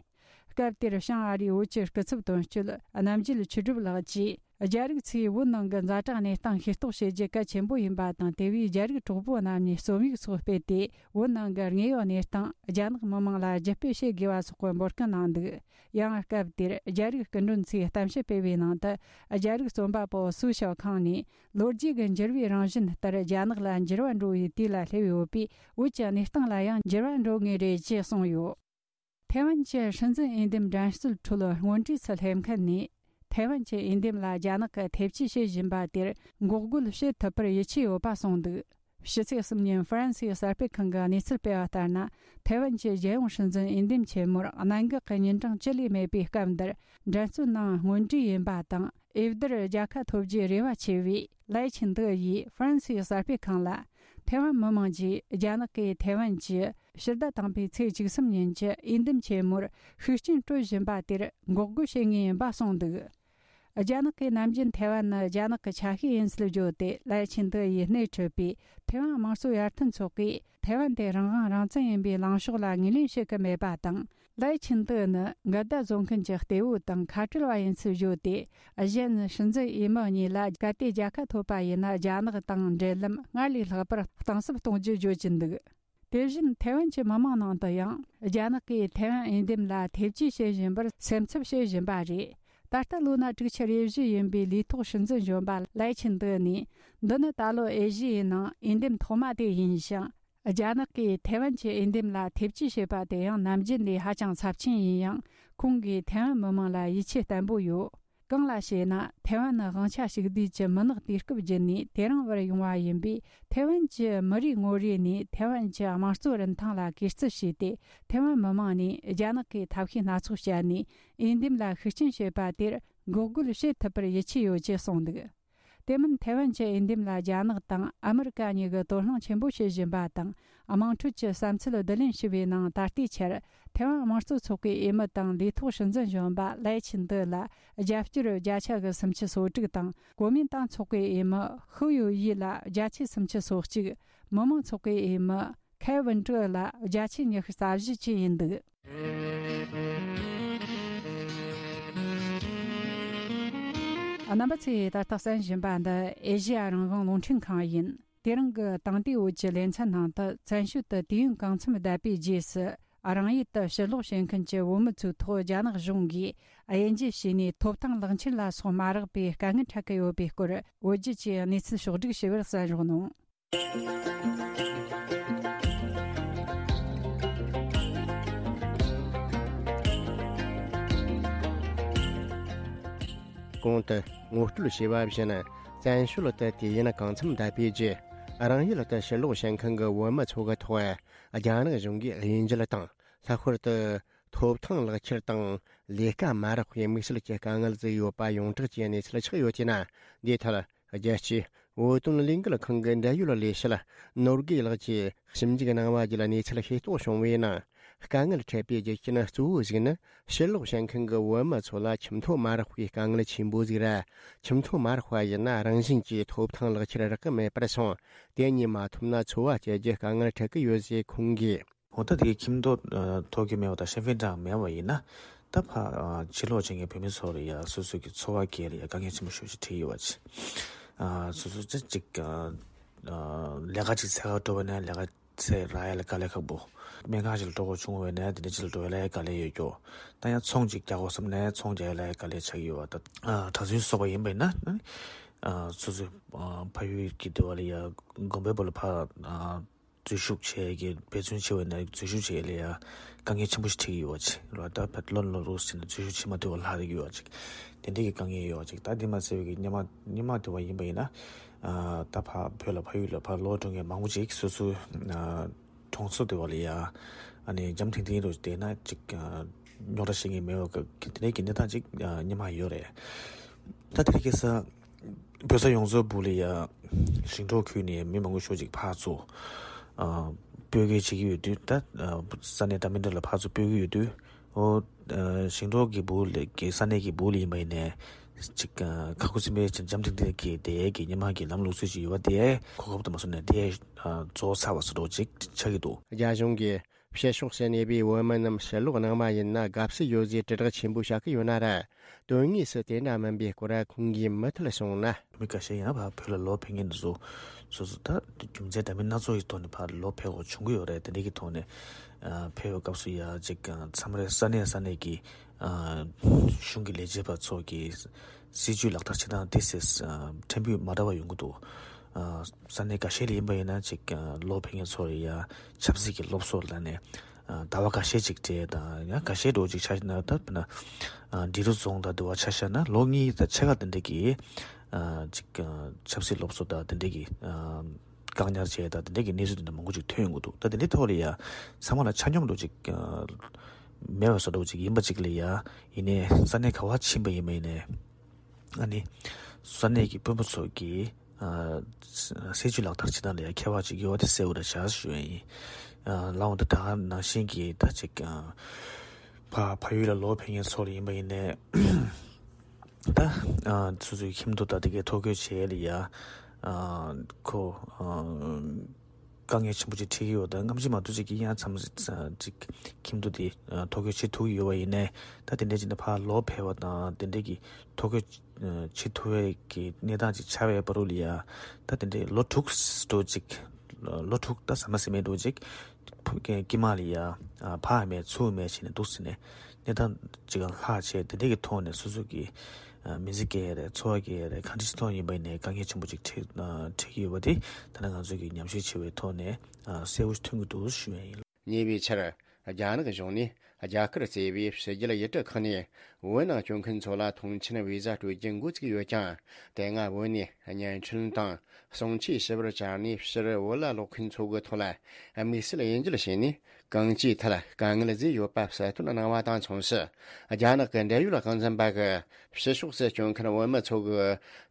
སྐབས་དེར་བྱང་ཨ་རིའི་བོད་ཀྱི་སྐུ་ཚབ་དོན་གཅོད་རྣམ་རྒྱལ་ཆོས་གྲུབ་ལགས་ཀྱིས། རྒྱ་རིགས་ཚོས་བོད་ནང་གི་ཛ་དྲག་གནས་སྟངས་ཤེས་རྟོགས་བྱེད་རྒྱུ་གལ་ཆེན་པོ་ཡིན་པ་དང་། དེ་བས་རྒྱ་རིགས་གྲོགས་པོ་རྣམས་ནས་རྩོམ་ཡིག་སོགས་སྤེལ་ཏེ། བོད་ནང་གི་དངོས་ཡོད་གནས་སྟངས་རྒྱ་ནག་མི་མང་ལ་བརྒྱུད་སྤེལ་བྱེད་དགོས་པ་སོགས་ཀྱི་འབོད་སྐུལ་གནང་འདུག། ཡང་སྐབས་དེར་རྒྱ་རིགས་སྐུ་མགྲོན་ཚོས་གཏམ་བཤད་སྤེལ་བའི་ནང་དུ། རྒྱ་རིགས་རྩོམ་པ་པོ་སུའུ་ཞའོ་ཁང་ནས། ལོ་རྒྱུས་ཀྱི་འགྱུར་བའི་རང་བཞིན་ལྟར་རྒྱ་ནག་ལ་འགྱུར་བ་འགྲོ་བའི་དུས་ལ་སླེབས་ཡོད་པས། བོད་ཀྱི་གནས་སྟངས་ལ་ཡང་འགྱུར་བ་འགྲོ་ངེས་རེད་ཅེས་གསུངས་ཡོད། ཐའེ་ཝན་གྱི་སྲིད་འཛིན་འོས་འདེམས་འགྲན་རྩོད་ཁྲོད་སྔོན་གྲས་སུ་སླེབས་མཁན་ནས། ཐའེ་ཝན་གྱི་འོས་འདེམས་ལ་རྒྱ་ནག་གིས་ཐེ་བྱུས་བྱེད་བཞིན་པ་དེར་འགོག་རྒོལ་བྱེད་ཐུབ་པར་ཡིད་ཆེས་ཡོད་པ་གསུངས་འདུག། ཕྱི་ཚེས་གསུམ་ཉིན་ཧྥ་རན་སིའི་གསར་སྤེལ་ཁང་གིས་གནས་ཚུལ་སྤེལ་བ་ལྟར་ན། ཐའེ་ཝན་གྱི་རྒྱལ་ཡོངས་སྲིད་འཛིན་འོས་འདེམས་ཆེན་མོར་གནད་འགག་གི་ཉིན་གྲངས་བཅུ་ལས་མེད་པའི་སྐབས་འདིར། འགྲན་རྩོད་ནང་སྔོན་གྲས་ཡིན་པ་དང་། འོས་བསྡུར་རྒྱལ་ཁ་ཐོབ་རྒྱུའི་རེ་བ་ཆེ་བའི་ལའེ་ཆིན་ཏེ་ཡིས་ཧྥ་རན་སིའི་གསར་སྤེལ་ཁང་ལ། ཐའེ་ཝན་མི་མང་གིས་རྒྱ་ནག་གིས་ཐའེ་ཝན་གྱི་ཕྱི་ཟླ་དང་པོའི་ཚེས་བཅུ་གསུམ་ཉིན་གྱི་འོས་འདེམས་ཆེན་མོར་ཤུགས་རྐྱེན་སྤྲོད་བཞིན་པ་དེར་འགོག་རྒོལ་བྱེད་ངེས་ཡིན་པ་གསུངས་འདུག། རྒྱ་ནག་གིས་ནམ་རྒྱུན་ཐའེ་ཝན་ནི་རྒྱ་ནག་གི་ཆ་ཤས་ཡིན་ཚུལ་བརྗོད་དེ། ལའེ་ཆིན་ཏེ་ཡིས་སྣེ་ཁྲིད་པའི་ཐའེ་ཝན་དམངས་གཙོ་ཡར་ཐོན་ཚོགས་པས། ཐའེ་ཝན་དེ་རང་དབང་རང་བཙན་ཡིན་པའི་ལངས་ཕྱོགས་ལ་ངོས་ལེན་བྱེད་ཀྱི་མེད་པ་དང་། ལའེ་ཆིན་ཏེ་ནི་འགལ་ཟླ་བཟོ་མཁན་གྱི་གཏེ་བོ་དང་ཁ་བྲལ་བ་ཡིན་ཚུལ་བརྗོད་དེ། གཞན་སྲིད་འཛིན་འོས་མི་གཉིས་ལ་གལ་ཏེ་རྒྱལ་ཁ་ཐོབ་པ་ཡིན་ན། རྒྱ་ནག་དང་འབྲེལ་ལམ་སྔར་ལས་ལྷག་པར་གཏིང་ཟབ་གཏོང་རྒྱུ་བརྗོད་ཀྱིན་འདུག། དེ་བཞིན་ཐའེ་ཝན་གྱི་མི་མང་ནང་དུ་ཡང་། རྒྱ་ནག་གིས་ཐའེ་ཝན་འོས་འདེམས་ལ་ཐེ་བྱུས་བྱེད་བཞིན་པར་སེམས་འཚབ་བྱེད་བཞིན་པ་རེད། ད་ལྟ་ལོ་ན་དྲུག་ཅུ་རེ་བཞི་ཡིན་པའི་ལུས་ཐོག་སྲིད་འཛིན་གཞོན་པ་ལའེ་ཆིན་ཏེ་ནས། འདི་ནི་ད་ལོ་ཨེ་ཤི་ཡའི་ནང་འོས་འདེམས་ཐོག་མ་དེ་ཡིན་ཞིང་། རྒྱ་ནག་གིས་ཐའེ་ཝན་གྱི་འོས་འདེམས་ལ་ཐེ་བྱུས་བྱེད་པ་དེ་ཡང་ནམ་རྒྱུན་ལས་ཧ་ཅང་ཚབས་ཆེན་ཡིན་ཡང་། ཁོང་གིས་ཐའེ་ཝན་མི་མང་ལ་ཡིད་ཆེས་བརྟན་པོ་ཡོད། གང་ལགས་ཞེ་ན། ཐའེ་ཝན་ནི་དབང་ཆ་ཕྱུག་བསྡུས་ཀྱི་མུན་ནག་དུས་སྐབས་བརྒྱུད་ནས་དེ་རིང་བར་ཡོང་བ་ཡིན་པས། ཐའེ་ཝན་གྱི་མི་རིགས་ངོ་རེ་ནས་ཐའེ་ཝན་གྱི་དམངས་གཙོ་རིན་ཐང་ལ་གུས་བརྩི་བྱས་ཏེ། ཐའེ་ཝན་མི་མང་ནས་རྒྱ་ནག་གིས་ཐབས་ཤེས་སྣ་ཚོགས་སྤྱད་ནས་འོས་འདེམས་ལ་ཤུགས་རྐྱེན་བྱེད་པ་དེར་འགོག་རྒོལ་བྱེད་ཐུབ་པར་ཡིད་ཆེས་ཡོད་ཅེས་གསུངས་འདུག། དེ་མིན་ཐའེ་ཝན་གྱི་འོས་འདེམས་ལ་རྒྱ་ནག་དང་ཨ་མི་རི་ཀ་གཉིས་ཀྱིས་དོ་སྣང་ཆེན་པོ་བྱེད་བཞིན་པ་དང་། དམངས་ཁྲོད་ཀྱི་བསམ་ཚུལ་བསྡུ་ལེན་ཞུ་བའི་ནང་ད་ལྟའི་ཆར། ཐའེ་ཝན་དམངས་གཙོ་ཚོགས་པའི་འོས་མི་དང་ལུས་ཐོག་སྲིད་འཛིན་གཞོན་པ་ལའེ་ཆིན་ཏེ་ལ་རྒྱབ་སྐྱོར་བརྒྱ་ཆ་གི་སུམ་ཅུ་སོ་དྲུག་དང་། གོ་མིན་ཏང་ཚོགས་པའི་འོས་མི་ཧུའུ་ཡུའུ་ཡི་ལ་བརྒྱ་ཆའི་སུམ་ཅུ་སོ་གཅིག། མི་མང་ཚོགས་པའི་འོས་མི་ཁའེ་ཝུན་ཀྲི་ལ་བརྒྱ་ཆའི་ཉི་ཤུ་རྩ་བཞི་བཅས་ཡིན་འདུག། རྣམ་པ་ཚོས་ད་ལྟ་གསན་བཞིན་པ་འདི་ཨེ་ཤེ་ཡ་རང་དབང་རླུང་འཕྲིན་ཁང་ཡིན། དེ་རིང་གི་དེང་དུས་བོད་ཀྱི་ལེ་ཚན་ནང་དུ། བཙན་བྱོལ་དུ་དུས་ཡུན་གང་འཚམ་བསྡད་པའི་རྗེས་སུ། རང་ཡུལ་དུ་ཕྱིར་ལོག་བྱེད་མཁན་གྱི་བོད་མི་ཚོའི་ཐོག་རྒྱ་ནག་གཞུང་གིས་དབྱེ་འབྱེད་བྱས་ནས། ཐོབ་ཐང་ལག་འཁྱེར་ལ་སོགས་མ་རག་པའི་དཀའ་ངལ་འཕྲད་ཀྱི་ཡོད་པའི་སྐོར། བོད་བརྒྱུད་ཀྱི་གནས་ཚུལ་ཕྱོགས་བསྒྲིགས་ཞུ་བར་གསན་རོགས་གནང་། གོང་དུ་ངོ་སྤྲོད་བྱས་པ་བཞིན། བཙན་བྱོལ་དུ་དུས་ཡུན་གང་འཚམ་བསྡད་པའི་རྗེས། རང་ཡུལ་དུ་ཕྱིར་ལོག་བྱེད་མཁན་གྱི་བོད་མི་ཚོ་གི་ཐོག་རྒྱ་ནག་གཞུང་གིས་དབྱེ་འབྱེད་དང་། ལྷག་པར་དུ། ཐོབ་ཐང་ལག་ཁྱེར་དང་ལས་ཀ་མ་རག་པའི་དམིགས་བསལ་གྱི་དཀའ་ངལ་བརྩི་ཡོད་པ་ཡོངས་གྲགས་ཀྱི་གནས་ཚུལ་ཆགས་ཡོད་ཅེ་ན། འདིའི་ཐད་རྒྱལ་སྤྱིའི་བོད་དོན་ལས་འགུལ་ཁང་གི་འབྲེལ་ཡོད་ལས་བྱེད་ནོར་དགེ་ལགས་ཀྱིས་ཞིབ་འཇུག་གནང་བ་བརྒྱུད་གནས་ཚུལ་ཤེས་རྟོགས་བྱུང་བའི་ནང་། དཀའ་ངལ་འཕྲད་པའི་རྒྱུ་རྐྱེན་གཙོ་བོ་ཞིག་ནི། ཕྱིར་ལོག་བྱེད་མཁན་གྱི་བོད་མི་ཚོ་ལ་ཁྱིམ་ཐོ་མ་རག་པའི་དཀའ་ངལ་ཆེན་པོ་ཟིག་རེད། ཁྱིམ་ཐོ་མ་རག་པ་ཡིན་ན་རང་བཞིན་གྱིས་ཐོབ་ཐང་ལག་ཁྱེར་རག་གི་མེད་པར་སོང་། དེ་གཉིས་མ་ཐོབ་ན་འཚོ་བ་སྐྱེལ་རྒྱུ་དཀའ་ངལ་འཕྲད་ཀྱི་ཡོད་ཅེས་ཁོང་གིས། འོ་ད་དེ་ཁྱིམ་ཐོ་ཐོབ་ཀྱི་མེད་པ་དང་ཤེས་ཡོན་གྲངས་མེད་པ་ཡིན་ན། ད་ཕ་ཕྱིར་ལོག་བྱེད་མཁན་བོད་མི་ཚོ་ལ་ཡ་སོ་སོ་གི་འཚོ་བ་སྐྱེལ་ལ་ཡ་དཀའ་ངལ་ཆེན་པོ་ཞེ་པོ་ཅིག་འཕྲད་ཀྱི་ཡོད་པ་ཅིག་སོ་སོ་ཅིག་ཅིག་ལས་ཀ་ཅིག་འཚོལ་ག་འགྲོ་བ་ན་ལས་ཀ་ཚེ་རག་ཡ་ལ་དཀའ་ལས་ཁག་པོ། སྨན་ཁང་ཞིག་ལ་འགྲོ་དགོས་བྱུང་བས་ན་དེ་འདྲ་ཅིག་ལ་འགྲོ་ཡ་ལ་དཀའ་ལས་ཡོད་ཀྱོ། ད་ཡང་ཚོང་ཅིག་རྒྱག་དགོས་བསམ་ན་ཚོང་རྒྱག་ཡ་ལ་དཀའ་ལས་ཆགས་ཀྱི་ཡོད་པ། ད་གྲྭ་བཙུན་སོགས་པ་ཡིན་པ་ཡིན་ན། སོ་སོའི་ཕ་ཡུལ་གྱི་འདི་བ་ལ་ཡ་དགོན་པའི་བུ་ལ་ཕ་འཛུལ་ཞུགས་བྱས་ཀྱི་འབད་བརྩོན་བྱས་པ་ཡིན་ན་འཛུལ་ཞུགས་བྱས་ལ་ཡ་དཀའ་ངལ་ཆེན་པོ་ཞིག་འཕྲད་ཀྱི་ཡོད་པ་ཅིག་ལ། ད་ཕ་ལོ་ལོ་རུ་ཟིན་ན་འཛུལ་ཞུགས་བྱེད་མ་ཐུབ་པ་ལྷག་ཡོད་པ་ཅིག་དེ་འདྲ་གི་དཀའ་ངལ་ཡོད་པ་ཅིག་ད་དེ་མ་ཟད་པའི་གི་སྔོན་མ་སྔོན་མ་འདི་བ་ཡིན་པ་ཡིན་ན། ད་ཕ་བོད་ལ་ཕ་ཡུལ་ལ་ཕ་ལོག་འགྲོ་མཁན་མང་པོ་ཅིག་སོ་སོའི་གྲོང་ཚོ་དེ་བ་ལ་ཡ་ཨ་ནི་འཇམ་ཐིང་ཐིང་རུ་བསྡད་ན་ཅིག་རྙོག་དྲ་བཤད་མཁན་མེད་པ་གི་དེ་འདྲའི་གི་གནས་སྟངས་ཅིག་སྔོན་མ་ཡོད་རེད། ད་དེ་རིང་ཁ་སང་བོད་ས་ཡོངས་རྫོགས་སྦུག་ལ་ཡ་ཞིང་འབྲོག་ཁུལ་ནས་མི་མང་པོ་ཤོས་ཅིག་ཕར་ཚུར་སྤོས་སྐྱེལ་བྱེད་ཀྱི་ཡོད་དུས། ད་ས་གནས་འདྲ་མི་འདྲ་ལ་ཕར་ཚུར་སྤོས་ཀྱི་ཡོད་དུས། ཨོ། ཨ། ཞིང་འབྲོག་གི་སྦུག་ལ་གི་ས་གནས་ཀྱི་སྦུག་ལ་ཡིན་པ་ཡིན་ནའི། ཅིག་ཨ། ཁ་ཁུ་སིམ་པའི་ཅིག་འཇམ་ཐིང་ཐིང་གི་དེ་གི་སྔོན་མ་གི་ལམ་ལུགས་སྲོལ་ཅིག་ཡོད་པ་དེ་གོ་སྐབས་དུ་མ་སོང་ནས་དེ་ཨ། རྫོགས་ཚར་བ་བཟོ་འདྲ་ཅིག་ཆགས་ཀྱི་འདུག་རྒྱ་གཞུང་གིས་ཕྱི་ཕྱོགས་སུ་གནས་པའི་བོད་མི་རྣམས་ཕྱིར་ལོག་གནང་བ་ཡིན་ན་དགའ་བསུ་ཡོད་ཟེར་དྲིལ་བསྒྲགས་ཆེན་པོ་བྱ་གི་ཡོད་ན་ར། དོན་དངོས་སུ་དེ་འདྲ་མིན་པའི་སྐོར་ཁོང་གིས་མུ་མཐུད་གསུངས་ན། མི་འགའ་ཤས་ཡང་ཕར་བོད་ལ་ལོག་ཕེབས་མཁན་དེ་ཚོ་སོ་སོ་ད་རྒྱུ་མཚན་འདྲ་མིན་སྣ་ཚོགས་ཀྱི་ཐོག་ནས་ཕར་ལོག་ཕེབས་དགོས་བྱུང་གི་ཡོད་རེད། དེ་འདྲ་གི་ཐོག་ནས་ཨ། ཕེབས་པའི་སྐབས་སུ་ཡ་ཅིག་མཚམས་རེ་ས་གནས་ས་གནས་ཀྱི་ཨ། གཞུང་གི་ལས་བྱེད་པ་ཚོ་གི་སྲིད་ཇུས་ལག་བསྟར་བྱེད་སྟངས་དེ་སེ་ཕྲན་བུ་མ་འདྲ་བ་ཡོང་གི་འདུག་ཨ། ས་གནས་འགའ་ཤས་ལ་ཡིན་པ་ཡིན་ན་ཅིག་ལོག་ཕེབས་མཁན་ཚོ་ལ་ཡ་ཆབ་སྲིད་ཀྱི་སློབ་གསོ་ལ་ནས། ཟླ་བ་འགའ་ཤས་ཅིག་སྤྲད་དང་ཡང་འགའ་ཤས་འགྲོ་ཅིག་ཆ་ན་ད་དཔེར་ན་འབྲི་རུ་རྫོང་དང་དེ་བ་ཆ་བཞག་ན་ལོ་གཉིས་དང་ཕྱེད་ཀ་དེ་འདྲ་གི་ཅིག་ཆབ་སྲིད་སློབ་གསོ་དང་དེ་འདྲ་གི་བཀག་ཉར་བྱས་དང་དེ་འདྲ་གི་གནས་ཚུལ་དེ་འདྲ་མང་པོ་ཅིག་ཐོན་ཡོང་གི་འདུག་ད་དེ་འདྲའི་ཐོག་ལ་ཡ་ཚང་མ་ལ་ཆ་སྙོམས་འགྲོ་ཅིག་མེད་པ་བཟོ་འདྲ་ཅིག་ཡིན་པ་ཅིག་ལ་ཡ་ཡིན་ནའི་ས་གནས་ག་བ་ཕྱིན་པ་ཡིན་པ་ཡིན་ནའི། ཨ་ནི། ས་གནས་ཀྱི་དཔོན་པོ་ཚོ་གིས། ཨ། སྲིད་ཇུས་ལག་བསྟར་བྱེད་སྟངས་ལ་ཡང་ཁྱད་པར་ཅིག་ཡོད་པ་དེ་གསལ་པོ་རེད་བཞག་ཞུ་ཡ་ཡིན། ཨ། ལའང་ད་ད་ག་ནང་བཞིན་གྱི་ད་ཅིག་ཨ། ཕ་ཕ་ཡུལ་ལ་ལོག་ཕེབས་མཁན་ཚོ་ལ་ཡིན་པ་ཡིན་ནའི། ད། ཨ། སོ་སོའི་ཁྱིམ་ཐོ་ད་དེ་གའི་ཐོ་འགོད་བྱེད་ཡ་ལ་ཡ། ཨ། ཁོ། ཨ། དཀའ་ངལ་ཆེན་པོ་ཅིག་འཕྲད་ཀྱི་ཡོད། ད་སྔ་ཕྱི་མ་གཏོགས་ཅིག་གི་ཡང་མཚམས་ཅིག་ཁྱིམ་ཐོ་དེ་ཐོ་འགོད་བྱེད་ཐུབ་ཀྱི་ཡོད་པ་ཡིན་ནའི་ད་དེ་འདྲ་ཅིག་ནས་ཕར་ལོག་ཕེབས་པ་དང་དེ་འདྲ་གི་ཐོ་འགོད་བྱེད་ཐུབ་པའི་གི་གནས་སྟངས་ཅིག་ཆགས་པའི་བར་དུ་ལ་ཡ་ད་དེ་འདྲའི་ལོ་དྲུག་འགྲོ་ཅིག་ལོ་དྲུག་ད་ཟ་མ་ཟ་མེད་འགྲོ་ཅིག་དཀྱིལ་མ་ལ་ཡ་ཕར་མེད་ཚུར་མེད་བྱས་ནས་འདུག་ཟེར་ནས་གནས་སྟངས་ཅིག་ལྷག་བྱས་དེ་འདྲ་གི་ཐོག་ནས་སོ་སོ་གི་མི་ཚེ་སྐྱེལ་ཡ་རེད། འཚོ་བ་སྐྱེལ་ཡ་རེད། གང་འདྲ་ཞིག་ཐོག་ཡིན་པ་ཡིན་ནའི་དཀའ་ངལ་ཆེན་པོ་ཅིག་འཕྲད་འཕྲད་ཀྱི་ཡོད་པ་དེ་ད་ནི་ང་ཚོ་གི་ཉམས་ཞིབ་བྱས་པའི་ཐོག་ནས་གསལ་པོ་ཐོན་གྱི་འདུག་ཞུ་ཡ་ཡིན། ཉེ་བའི་ཆར་རྒྱ་ནག་གཞུང་ནས་རྒྱ་གར་གཙོས་པའི་ཕྱི་རྒྱལ་ཡུལ་གྲུ་ཁག་ནས་བོད་ནང་བསྐྱོད་མཁན་ཚོ་ལ་ཐོངས་མཆན་བི་ཟ་སྤྲོད་རྒྱུ་འགོ་བཙུགས་ཡོད་ཀྱང་། དེ་སྔ་བོད་ནས་བརྙན་འཕྲིན་དང་གསུང་ཆོས་ཞུ་བར་བཅར་ནས་ཕྱིར་བོད་ལ་ལོག་མཁན་ཚོ་གི་ཐོག་ལ་དམིགས་བསལ་དབྱེ་འབྱེད་བྱས་ནས། གང་ཅིའི་ཐད་དཀའ་ངལ་བཟོས་ཡོད་པ་གསལ་སྟོན་གནང་བ་དང་མཚུངས་སུ། རྒྱ་ནག་གི་འབྲེལ་ཡོད་དབང་འཛིན་པ་གིས་ཕྱི་ཕྱོགས་སུ་བསྐྱོད་མཁན་བོད་མི་ཚོ་གི་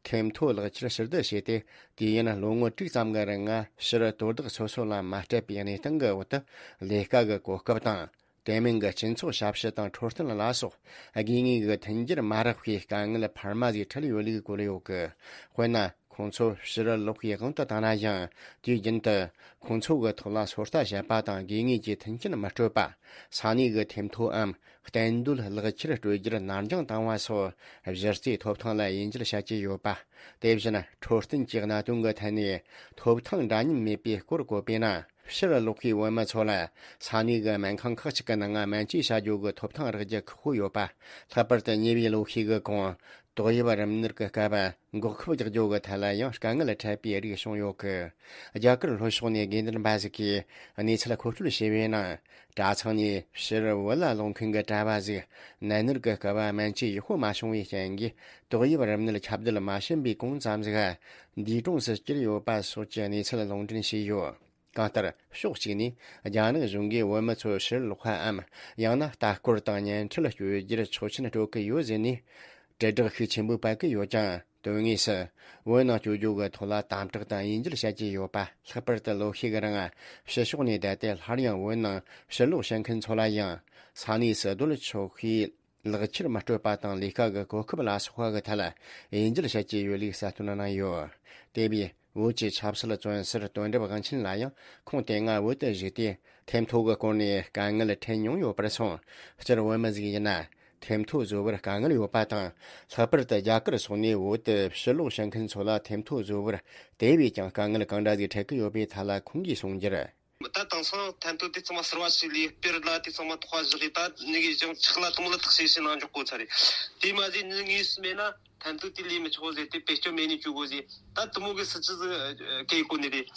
ཁྱིམ་ཐོ་ལག་ཁྱེར་ཕྱིར་བསྡུ་བྱས་ཏེ། དུས་ཡུན་ལོ་ངོ་དྲུག་ཙམ་གྱི་རིང་ཕྱིར་དོ་བདག་སོ་སོ་ལ་མ་སྤྲད་པའི་གནས་སྟངས་ཀྱི་འོག་ཏུ་ལས་ཀ་གི་གོ་སྐབས་དང་། དེ་མིན་གྱི་སྤྱི་ཚོགས་ཞབས་ཞུ་དང་འཕྲོད་བསྟེན་ལ་སོགས་དགོས་ངེས་ཀྱི་མཐུན་འགྱུར་མ་རག་པའི་དཀའ་ངལ་འཕར་མ་ཟིག་འཕྲད་ཡོད་ལུགས་བཀོད་ཡོད་གི། དཔེར་ན། ཁོང་ཚོ་ཕྱིར་ལོག་པའི་དབང་དུ་བཏང་ན་ཡང་། དུས་རྒྱུན་དུ་ཁོང་ཚོ་གི་ཐོག་ལ་ཚོད་ལྟ་བྱེད་པ་དང་དགོས་ངེས་ཀྱི་མཐུན་རྐྱེན་མི་སྤྲོད་པ། ས་གནས་ཀྱི་ཐེམ་ཐོའམ་གཏན་སྡོད་ལག་ཁྱེར་སྤྲོད་རྒྱུར་ནར་འགྱངས་བཏང་བ་སོགས་གཞི་རྩའི་ཐོབ་ཐང་ལ་དབྱེ་འབྱེད་བྱ་རྒྱུ་ཡོད་པ། དེ་བཞིན་འཕྲོད་བསྟེན་གྱི་གནད་དོན་གྱི་ཐད་ནས་ཐོབ་ཐང་འདྲ་མཉམ་མེད་པའི་སྐོར་བཀོད་པས་ན། ཕྱིར་ལོག་པའི་བོད་མི་ཚོ་ལ་ས་གནས་ཀྱི་སྨན་ཁང་ཁག་ཅིག་གི་ནང་སྨན་བཅོས་བྱ་རྒྱུ་གི་ཐོབ་ཐང་རག་རྒྱུ་ཁག་པོ་ཡོད་པ། ལྷག་པར་དུ་ཉེ་བའི་ལོ་ཤས་ཀྱི་གོང་ཏོག་དབྱིབས་རིམས་ནད་ཀྱི་སྐབས་འགོག་ཁབ་རྒྱག་རྒྱུ་གི་ཐད་ལ་ཡང་དཀའ་ངལ་འཕྲད་པའི་རིགས་བྱུང་ཡོད་གི། རྒྱ་གར་ལྷོ་ཕྱོགས་ནས་དགོས་འདུན་པ་ཟིག་གིས་གནས་ཚུལ་མཁོ་སྤྲོད་བྱས་པའི་ནང་། གྲྭ་ཚང་ནས་ཕྱིར་བོད་ལ་ལོག་མཁན་གྱི་གྲྭ་བ་ཟིག་ནད་མནར་གྱི་སྐབས་སྨན་བཅོས་ཡག་པོ་མ་བྱུང་བའི་རྐྱེན་གྱིས་ཏོག་དབྱིབས་རིམས་ནད་ཁྱབ་གདལ་མ་ཕྱིན་པའི་གོང་ཙམ་ཟིག་འདས་གྲོངས་སུ་གྱུར་ཡོད་པ་སོགས་ཀྱི་གནས་ཚུལ་ལུང་འདྲེན་བྱས་ཡོད། གང་ལྟར་ཕྱོགས་གཅིག་ནས་རྒྱ་ནག་གཞུང་གིས་བོད་མི་ཚོ་ཕྱིར་ལོག་པའམ་ཡང་ན་ལྟ་སྐོར་དང་བརྙན་འཕྲིན་སྤྱོད་རྒྱུར་ཆོག་མཆན་སྤྲོད་ཀྱི་ཡོད་ཟེར་ནས་དྲིལ་བསྒྲགས་ཤུགས་ཆེན་པོས་སྤེལ་གྱི་ཡོད་ཀྱང་། དོན་དངོས་སུ་བོད་ནང་བསྐྱོད་རྒྱུ་གི་ཐོག་ལ་དམ་དྲག་དང་དབྱེ་འབྱེད་བྱ་རྒྱུ་ཡོད་པ། ལྷག་པར་དུ་ལོ་ཤས་ཀྱི་རིང་ཕྱི་ཕྱོགས་ནས་བསྡད་དེ་སླར་ཡང་བོད་ནང་ཕྱིར་ལོག་བྱེད་མཁན་ཚོ་ལ་ཡང་ས་གནས་སུ་སྡོད་ཆོག་པའི་ལག་ཁྱེར་མི་སྤྲོད་པ་དང་ལས་ཀ་གི་གོ་སྐབས་ལ་སོགས་པ་གི་ཐད་དབྱེ་འབྱེད་བྱ་རྒྱུ་ཡོད་ལུགས་གསལ་སྟོན་གནང་ཡོད། དེ་བས་བོད་ཀྱི་ཆབ་སྲིད་བཙོན་ཟུར་དོན་གྲུབ་དབང་ཆེན་ལ་ཡང་ཁོང་དེ་སྔ་བོད་དུ་བཞུགས་ཏེ་ཐེམ་ཐོ་གི་སྐོར་ནས་དཀའ་ངལ་འཕྲད་མྱོང་ཡོད་པར་སོང་། སྤྱིར་བོད་མི་ཟིག་ཡིན་ན་ཐེམ་ཐོ་བཟོ་བར་དཀའ་ངལ་ཡོད་པ་དང་། ལྷག་པར་དུ་རྒྱ་གར་སོགས་ནས་བོད་དུ་ཕྱིར་ལོག་བྱེད་མཁན་ཚོ་ལ་ཐེམ་ཐོ་བཟོ་བར་དེ་བས་ཀྱང་དཀའ་ངལ་གང་འདྲ་ཟིག་འཕྲད་ཀྱི་ཡོད་པའི་ཐད་ལ་ཁོང་གིས་གསུངས་རྒྱུར། ད་དེང་སང་ཐེམ་ཐོ་དེ་ཚང་མ་གསར་བ་ཞིག་ལས་སྤེལ་ལ་དེ་ཚང་མ་ཐོག་བཞག་གི་ད་ནི་གི་ཅང་ཆག་ལ་དུ་མོ་ལ་ཐག་ཤེས་ཤེས་ནང་འཇོག་གོ་ཚར་རེད། དེ་མ་ཟད་ནི་ངེས་སུ་མེད་ན་ཐེམ་ཐོ་དེ་ལས་མི་ཆོག་ཟེར་ཏེ་བེད་སྤྱོད་མེད་ནས་བཅུག་གོ་ཟེར། ད་དུ་མོ་གི་སྲིད་ཇུས་ཟིག་གེ་གོ་ནི་རེད།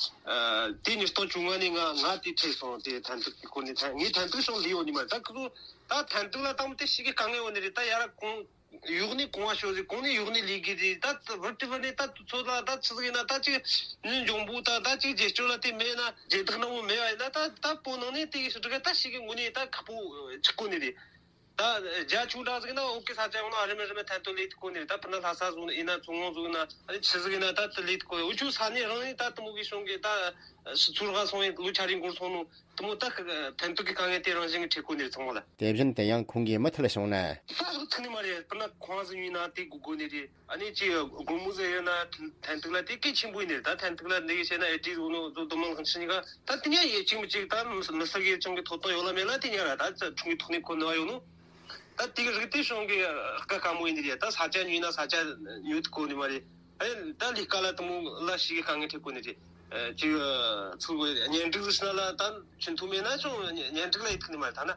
དེ་ཉིས་སྟོང་བཅོ་ལྔ་ནས་ང་ང་དེ་ཁྲིད་སོང་། དེ་ཐེམ་ཐོ་གི་སྐོར་ནས་ད་ངས་ཐེམ་ཐོ་ཤོང་ལས་ཡོད་ནི་མ་རེད། ད་ཁོ་ཚོ་ད་ཐེམ་ཐོ་ལ་དང་པོ་དེ་ཞིག་གི་དཀའ་ངལ་ཡོད་ནི་རེད། ད་ཡར་གོང་གཡོག་ནས་གོང་བ་ཤོར་ཟིག་གོང་ནས་གཡོག་ནས་ལས་ཀྱི་རེད། ད་ད་བར་དུ་བར་ནས་ད་ཚོ་ལ་ད་ཆི་ཟིག་ཡིན་ན་ད་ཅིག་ནི་འབྱུང་པོ་ད་ད་ཅིག་རྗེས་སྐྱོར་ལ་དེ་མེད་ན་རྗེས་ཐག་ནང་མོ་མེད་པ་ཡིན་ན་ད་ད་བོད་ནང་ནས་དེ་གི་ཞིག་ད་ཞིག་གི་ངོ་ནས་ད་ཁག་པོ་ཆགས་གོ་ནི་རེད། ད་རྒྱ་ཆུང་དྲགས་ཟིག་ན་འོག་གི་ས་ཆ་ཡོང་ན་རིམ་རིམ་ཐན་ཐོ་ལས་ཐུབ་གོ་ནི་རེད། ད་སྤུ་ན་ལྷ་ས་ཟིག་ཡིན་ན་མཚོ་སྔོན་ཟིག་ཡིན་ན་ཨ་ནི་ཆི་ཟིག་ཡིན་ན་ད་དེ་ལས་ཐུབ་གོ་ནི། འུ་ཆོ་ས་གནས་རང་ནས་ད་དེ་མོ་གི་གཞུང་གི་ད་ཚུར་ག་སོང་ཡིན་ལོ་ཆ་རེ་འགོར་སོང་ནོ། དེ་མོ་ད་ཐན་ཐུག་གི་དཀའ་ངལ་དེ་རང་བཞིན་གྱི་འཕྲད་གོ་ནི་རེད་ཚང་མ་ལ། དེ་བཞིན་དུ་ཡང་ཁོང་གིས་མུ་མཐུད་གསུངས་ན། ད་ལོ་ཐུག་ནི་མ་རེད། སྤུ་ན་ཁོང་ཟིག་ཡིན་ན་དེ་དགོས་དགོས་ནི་རེད། ཨ་ནི་ཅི་དགོང་མོ་ཟིག་ཡོད་ན་ཐན་ཐུག་ལ་དེ་གལ་ཆེན་པོ་ཡིན་ནི་རེད། ད་ཐན་ཐུག་ལ་འདི་གི་བཤད་ན་ཨེ་ཏི་ཟོ་ནོ་ཟོ་དུ་མང་ཁང་ཕྱི་ཉི་ག་ད་དེ་ཉ་ཡེ་གཅིག་མི་གཅིག་ད་མི་ས་གི་ཅང་གི་ཐོབ་ཐང་ཡོད་ལ་མེད་ལ་དེ་ཉ་ར་ད་ཁྲུང་གི་ཐོག་ནས་ཁོ་ནི་ཡོད་ནོ། ད་དེ་གི་རིགས་དེ་ཤོང་གི་ཀ་ཀ་མོ་ཡིན་ནི་རེད། ད་ས་ཆ་ཉོས་ན་ས་ཆ་ཉོས་ཐུབ་གོ་ནི་མ་རེད། ཨེ་ད་ལས་ཀ་ལ་དུ་མོ་ལ་ཞིག་གི་དཀའ་ངལ་འཕྲད་གོ་ནི་རེད། ཅིག་ཚུགས་གཉེན་སྒྲིག་ཟིག་ན་ལ་ད་ཆུན་ཐུ་མེད་ན་ཅུང་གཉེན་སྒྲིག་ལ་ཡི་ཐུག་ནི་མ་ཐ་ན།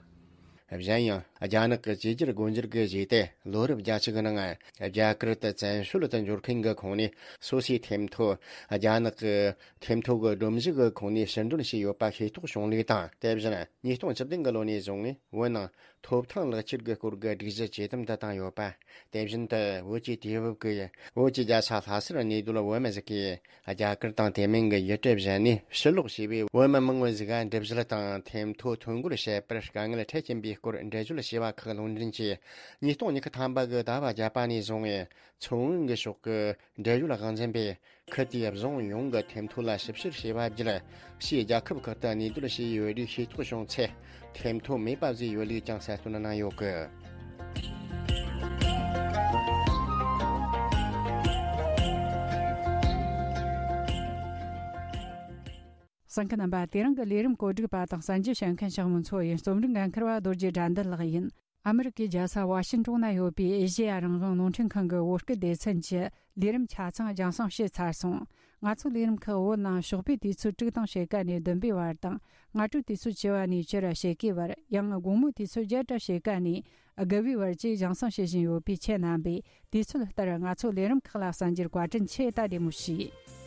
གཞན་ཡང་རྒྱ་ནག་གི་བཅོས་སྒྱུར་སྒོ་འབྱེད་ཀྱི་གཞི་དེ་ལོ་རབས་བརྒྱད་ཅུ་གི་ནང་རྒྱ་གར་དུ་བཙན་བྱོལ་དུ་འབྱོར་མཁན་གྱི་ཁོངས་ནས་སོ་སོའི་ཐེམ་ཐོ་རྒྱ་ནག་གི་ཐེམ་ཐོ་གི་སྒྲོམ་གཞི་གི་ཁོངས་ནས་ཕྱིར་འདོན་བྱས་ཡོད་པ་ཤེས་རྟོགས་བྱུང་ལུགས་དང་། དེ་བཞིན་ཉིས་སྟོང་བཅུ་བདུན་གི་ལོ་ནས་བཟུང་བོད་ནང་ཐོབ་ཐང་ལག་ཁྱེར་གྱི་སྐོར་གྱི་སྒྲིག་གཞི་ཇེ་དམ་དུ་བཏང་ཡོད་པ། དེ་བཞིན་དུ་བོད་ཀྱི་དུས་བབ་ཀྱི་བོད་ཀྱི་རྒྱལ་ས་ལྷ་སར་གནས་སྡོད་བོད་མི་ཟིག་གིས་རྒྱ་གར་དང་དེ་མིན་གྱི་ཡུལ་གྲུ་གཞན་ནས་ཕྱིར་ལོག་བྱས་པའི་བོད་མི་མང་བོ་ཟིག་ག་འགྲུལ་བཞུད་དང་ཐེམ་ཐོ་ཐོ་འགོད་བྱེད་པར་དཀའ་ངལ་འཕྲད་ཀྱིན་པའི་སྐོར་འགྲེལ་བརྗོད་བྱས་པ་ཁག་ལུང་འདྲེན་གྱིས། ཉིས་སྟོང་ཉི་ཤུ་ཐམ་པ་གི་ཟླ་བ་བརྒྱད་པ་ནས་བཟུང་མཚོ་སྔོན་གྱི་ཕྱོགས་ཀྱི་འབྲེལ་ཡོད་དབང་འཛིན་པས། ཁུལ་དེའི་རྫོང་ཡོངས་ཀྱི་ཐེམ་ཐོ་ལ་ཞིབ་བཤེར་བྱས་པ་བརྒྱུད། ཕྱིའི་རྒྱལ་ཁབ་ཁག་ཏུ་གནས་སྡོད་བྱས་ཡོད་རིགས་ཤེས་རྟོགས་བྱུང་ཚེ། ཐེམ་ཐོ་མེད་པ་བཟོས་ཡོད་ལུགས་ཀྱང་གསལ་སྟོན་གནང་ཡོད་གི། གསན་མཁན་རྣམ་པ། དེ་རིང་གི་ལས་རིམ་གོ་སྒྲིག་པ་དང་གསན་རྒྱུ་བྱེད་མཁན་ཞང་མུན་མཚོ་ཡིན། རྩོམ་སྒྲིག་འགན་འཁུར་བ་རྡོ་རྗེ་དགྲ་འདུལ་ལགས་ཡིན། ཨ་མི་རི་ཀའི་རྒྱལ་ས་ཝ་ཤིན་ཏོན་ན་ཡོད་པའི་ཨེ་ཤེ་ཡ་རང་དབང་རླུང་འཕྲིན་ཁང་གི་བོད་སྐད་སྡེ་ཚན་གྱི་ལས་རིམ་ཆ་ཚང་རྒྱང་སྲིང་བྱས་ཚར་སོང་། ང་ཚོའི་ལས་རིམ་ཁག་བོད་ནང་ཞོགས་པའི་དུས་ཚོད་དྲུག་དང་ཕྱེད་ཀ་ནས་བདུན་པའི་བར་དང་། སྔ་དྲོའི་དུས་ཚོད་བཅུ་པ་ནས་བཅུ་ར་ཕྱེད་ཀའི་བར། ཡང་དགོང་མོའི་དུས་ཚོད་བརྒྱད་དང་ཕྱེད་ཀ་ནས་དགུ་པའི་བར་བཅས་རྒྱང་སྲིང་བྱེད་བཞིན་ཡོད་པས། ཁྱེད་རྣམ་པས་དུས་ཚོད་ལྟར་ང་ཚོའི་ལས་རིམ་ཁག་ལ་གསན་རྒྱུར་བཀའ་དྲིན་ཆེ། ད་བདེ་མོ་བྱོས།